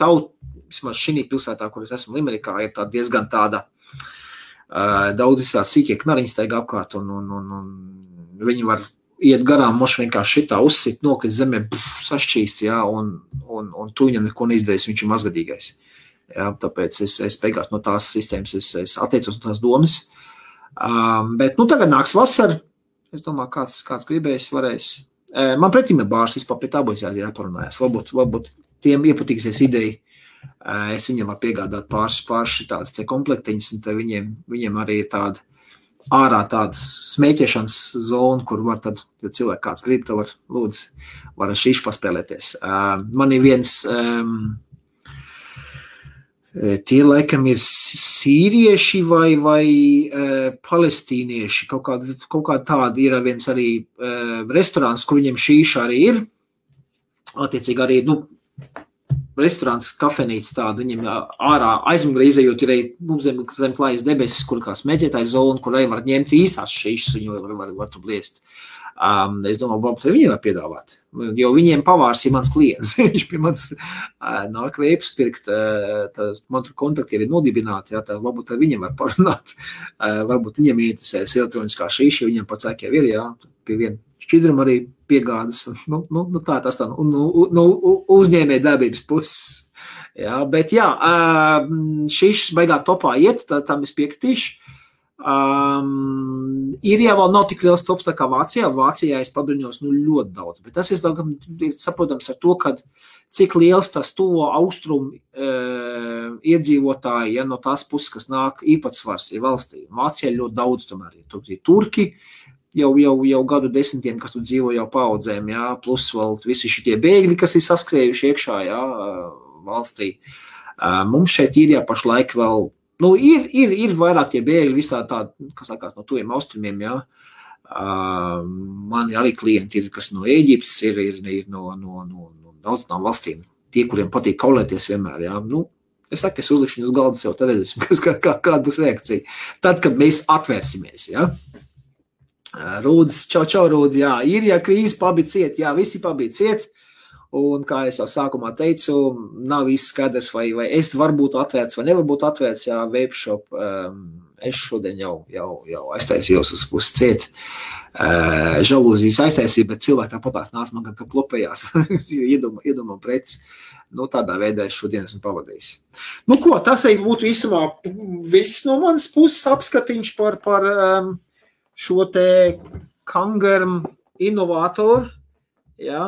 vismaz šī pilsētā, kur es esmu Limerikā, ir tā diezgan tāda daudz visās sīkie knariņas taigā apkārt, un viņi var iet garām, moši vienkārši šitā uzsit, nokrist zemē, sašķīst, jā, un tu viņam neko neizdarīs, viņš ir mazgadīgais. Jā, tāpēc es beigās no tās sistēmas, es atteicos no tās domas. Bet, tagad nāks vasara, es domāju, kāds gribēs, varēs. Man pretīm ir bārs, vispār pie tā būs jāparunājas. Varbūt tiem iepatīksies ideja. Es viņiem varu piegādāt pāris šitādas te komplektiņas, un te viņiem arī ir tāda ārā tādas smēķēšanas zona, kur var tad, ja cilvēki kāds grib, tad var ar šīšu paspēlēties. Man ir viens, tie laikam ir sīrieši vai palestīnieši, kaut kā tādi ir viens arī restorāns, kur viņiem šīša arī ir. Attiecīgi arī, restorāns, kafejnīca tāda, viņiem ārā aizmugurē izējot ir zem klājas debesis, kur kā smēķētāja zona, kur arī var ņemt īstās šīšas, viņu var tu bliest. Es domāju, varbūt arī viņiem var piedāvāt, jo viņiem pavārs ir mans klients. Viņš pie mans nāk veipas pirkt, man tur kontakti ir nodibināti, jā, tā varbūt arī viņiem var parunāt. Varbūt viņiem interesēs elektroniskā šīša, viņiem pats sāk jau ir, jā, pie viena šķidruma arī piegādas, tā tas tā, uzņēmē darbības puses. Jā, bet jā, šīs baigā topā iet, tam es piekritīšu. Īrijā vēl nav tik liels tops tā kā Vācijā. Vācijā es pabriņos ļoti daudz, bet tas ir saprotams ar to, ka cik liels tas tuvo austrumu iedzīvotāji, ja no tās puses, kas nāk īpatsvars ir valstī. Vācijā ļoti daudz tomēr ir. Tur ir turki, jau gadu desmitiem, kas tur dzīvo jau paudzēm, jā, plus vēl visi šitie bēgļi, kas ir saskrējuši iekšā, jā, valstī. Mums šeit Īrijā pašlaik vēl, ir vairāk tie bēgļi, visā tādi, kas sākās no tuviem austrumiem, jā. Man arī klienti ir, kas no Ēģiptes ir no daudzām valstīm, tie, kuriem patīk kaulēties vienmēr, jā. Es saku, es uzlikšu uz galda sev, tad redzēsim, kāda būs reakcija. Tad, kad mēs atvērsimies, jā. Rūdis, čau, Rūdis, jā, Īrijā krīze pabija ciet, jā, visi pabija ciet, un, kā es jau sākumā teicu, nav viss skaidrs, vai es varu būt atvērts, vai nevar būt atvērts, jā, Vapeshop, es šodien jau aiztaisījos uz ciet, žalūzijas aiztaisīju, bet cilvēki tāpatās nāc man, ka klopējās, iedomā preci, tādā veidā es šodien esmu pavadījis. Tas arī būtu īsumā viss no manas puses apskatiņš par šo te Kangarm inovātoru, ja,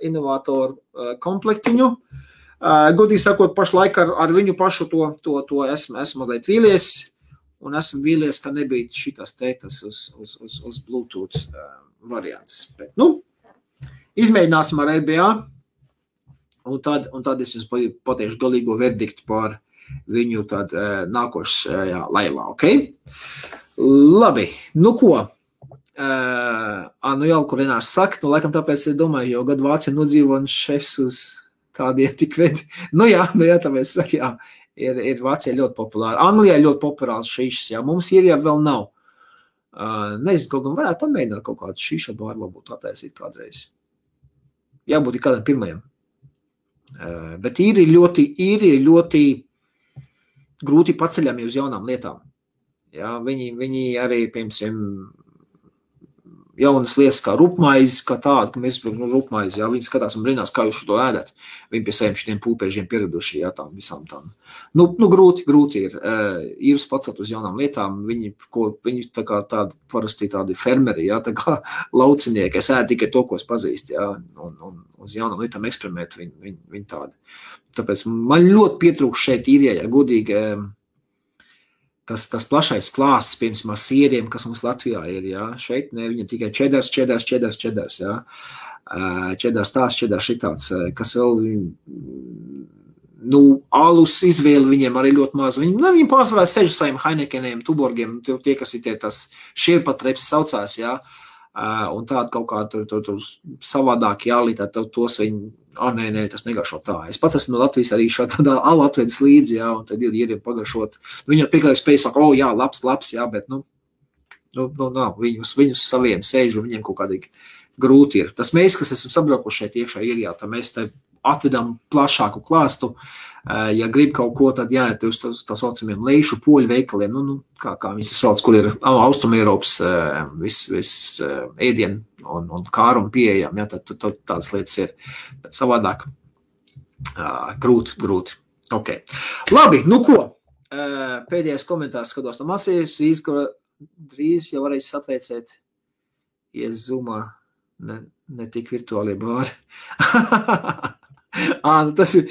inovātoru komplektiņu. Godīgi sakot, pašlaik ar viņu pašu to esmu mazliet vīlies, un esmu vīlies, ka nebija šitas teitas uz Bluetooth variants. Bet, izmēģināsim ar RBA, un tad es jums pateikšu galīgo verdiktu par viņu tad nākošajā laivā, ok? Labi, ko? Jau, kur Renārs saka, laikam tāpēc es domāju, jo gadu Vācija nodzīvo un šefs uz tādiem tik vedi. Jā, tāpēc saka, jā, ir Vācija ļoti populāra. Anglijā ļoti populārs šīšas, jā, mums ir jau vēl nav. Nezinu, kaut gan varētu pamēģināt kaut kādu šīša bāru, varbūt attaisīt kādreiz. Jābūt kādiem pirmajiem. Bet ir ļoti grūti paceļami uz jaunām lietām. Jā, viņi arī, piemēram, jaunas lietas kā rupmaizi, kā tāda, ka mēs rupmaizi, jā, viņi skatās un brīnās, kā jūs šo tādu ēdat. Viņi pie saviem šitiem pūpēžiem pieraduši, jā, tām visām tām. Grūti ir. Ir pacelt uz jaunām lietām, viņi tā kā tādi, parasti tādi fermeri, jā, tā kā laucinieki, es ēdu tikai to, ko es pazīstu, jā, un uz jaunām lietām eksperimentu viņi tādi. Tāpēc man ļoti pietrūkst šeit īrijā, godīgi, tas plašais klāsts, piemēram, sieriem, kas mums Latvijā ir, jā, šeit ne, viņam tikai čedars, jā, čedars tās, čedars šitāds, kas vēl, alus izvēli viņiem arī ļoti maz, viņi pārsvarā sež saviem Heinekeniem, Tuborgiem, tie, kas ir tie tas šierpatreps saucās, jā, un tāda kaut kā tur savādāk jālītā, tos viņi, nē, tas negaršo tā. Es pat esmu no Latvijas arī šādā alu atvedis līdzi, jā, un tad ir pagaršot. Viņam pieklājīgi spēj saka, jā, labs, jā, bet, nav, viņus saviem sēž, un viņiem kaut kādīgi grūti ir. Tas mēs, kas esam sabraukuši šeit iekšā Īrijā, tad mēs te atvedam plašāku klāstu. Ja grib kaut ko, tad jāiet uz tā saucamiem leišu poļu veikaliem, kā viņi sauc, kur ir Austrumēropas viss ēdien un kārumu pieejam, jā, tad tādas lietas ir. Bet savādāk grūti. Ok. Labi, ko? Pēdējais komentārs skatos no Masijas, drīz jau varēs atveicēt Zoomā, ne tik virtuālie bāri. Tas ir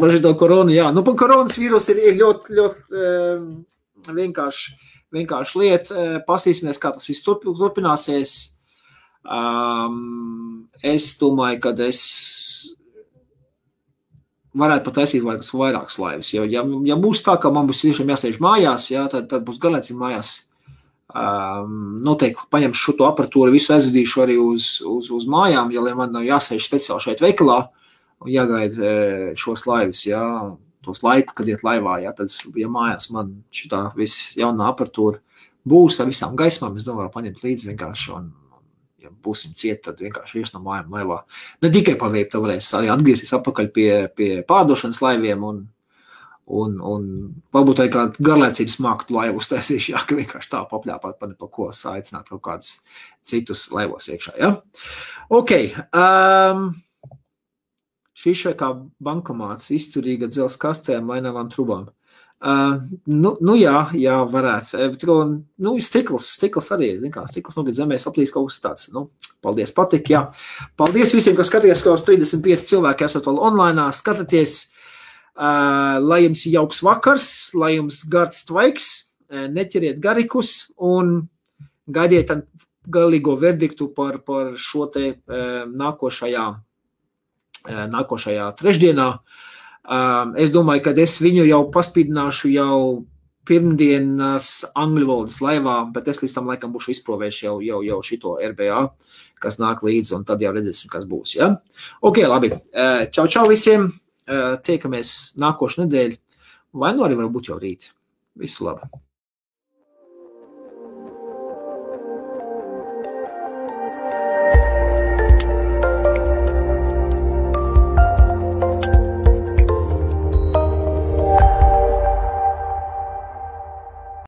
par šito koronu, jā. Par koronas vīrusu ir ļoti vienkārši lieta. Pasīsimies, kā tas viss turpināsies. Es domāju, ka es varētu pat taisīt vairākas laivas. Ja būs tā, ka man būs tiešām jāsēž mājās, jā, tad būs galēcīgi mājās. Noteikti paņemšu šo aparatūru, visu aizvedīšu arī uz mājām, ja man nav jāsēž speciāli šeit veikalā. Un jāgaida šos laivas, jā, tos laiku, kad iet laivā, jā, tad, ja mājās man šitā viss jaunā aparatūra būs ar visām gaismām, es domāju, paņemt līdzi vienkārši, un ja būsim cieti, tad vienkārši ies no mājām laivā. Ne tikai paveikt, tad varēs arī atgriezties atpakaļ pie pārdošanas laiviem, un varbūt arī kādu garlaicības māktu laivu uztaisīšu, jā, ka vienkārši tā papļāpāt par ko aicināt kaut kādus citus laivos iekšā, jā. Ok, šis šai kā bankomāts, izturīga dzels kastēm, mainavām trubām. Jā, varētu. Stikls arī, stikls nogad zemē saplīs kaut kas tāds. Paldies, patik, jā. Paldies visiem, kas skatījās, ka uz 35 cilvēki esat vēl online, skatāties. Lai jums jauks vakars, lai jums gards tvaiks, neķeriet garikus un gaidiet galīgo verdiktu par šo te nākošajā trešdienā. Es domāju, ka es viņu jau paspīdināšu jau pirmdienas angļu valodas laivā, bet es līdz tam laikam būšu izprovējis jau šito RBA, kas nāk līdzi, un tad jau redzēsim, kas būs, ja? Ok, labi. Čau visiem. Tiekamies nākošu nedēļu. Vai arī varbūt jau rīt. Visu labu.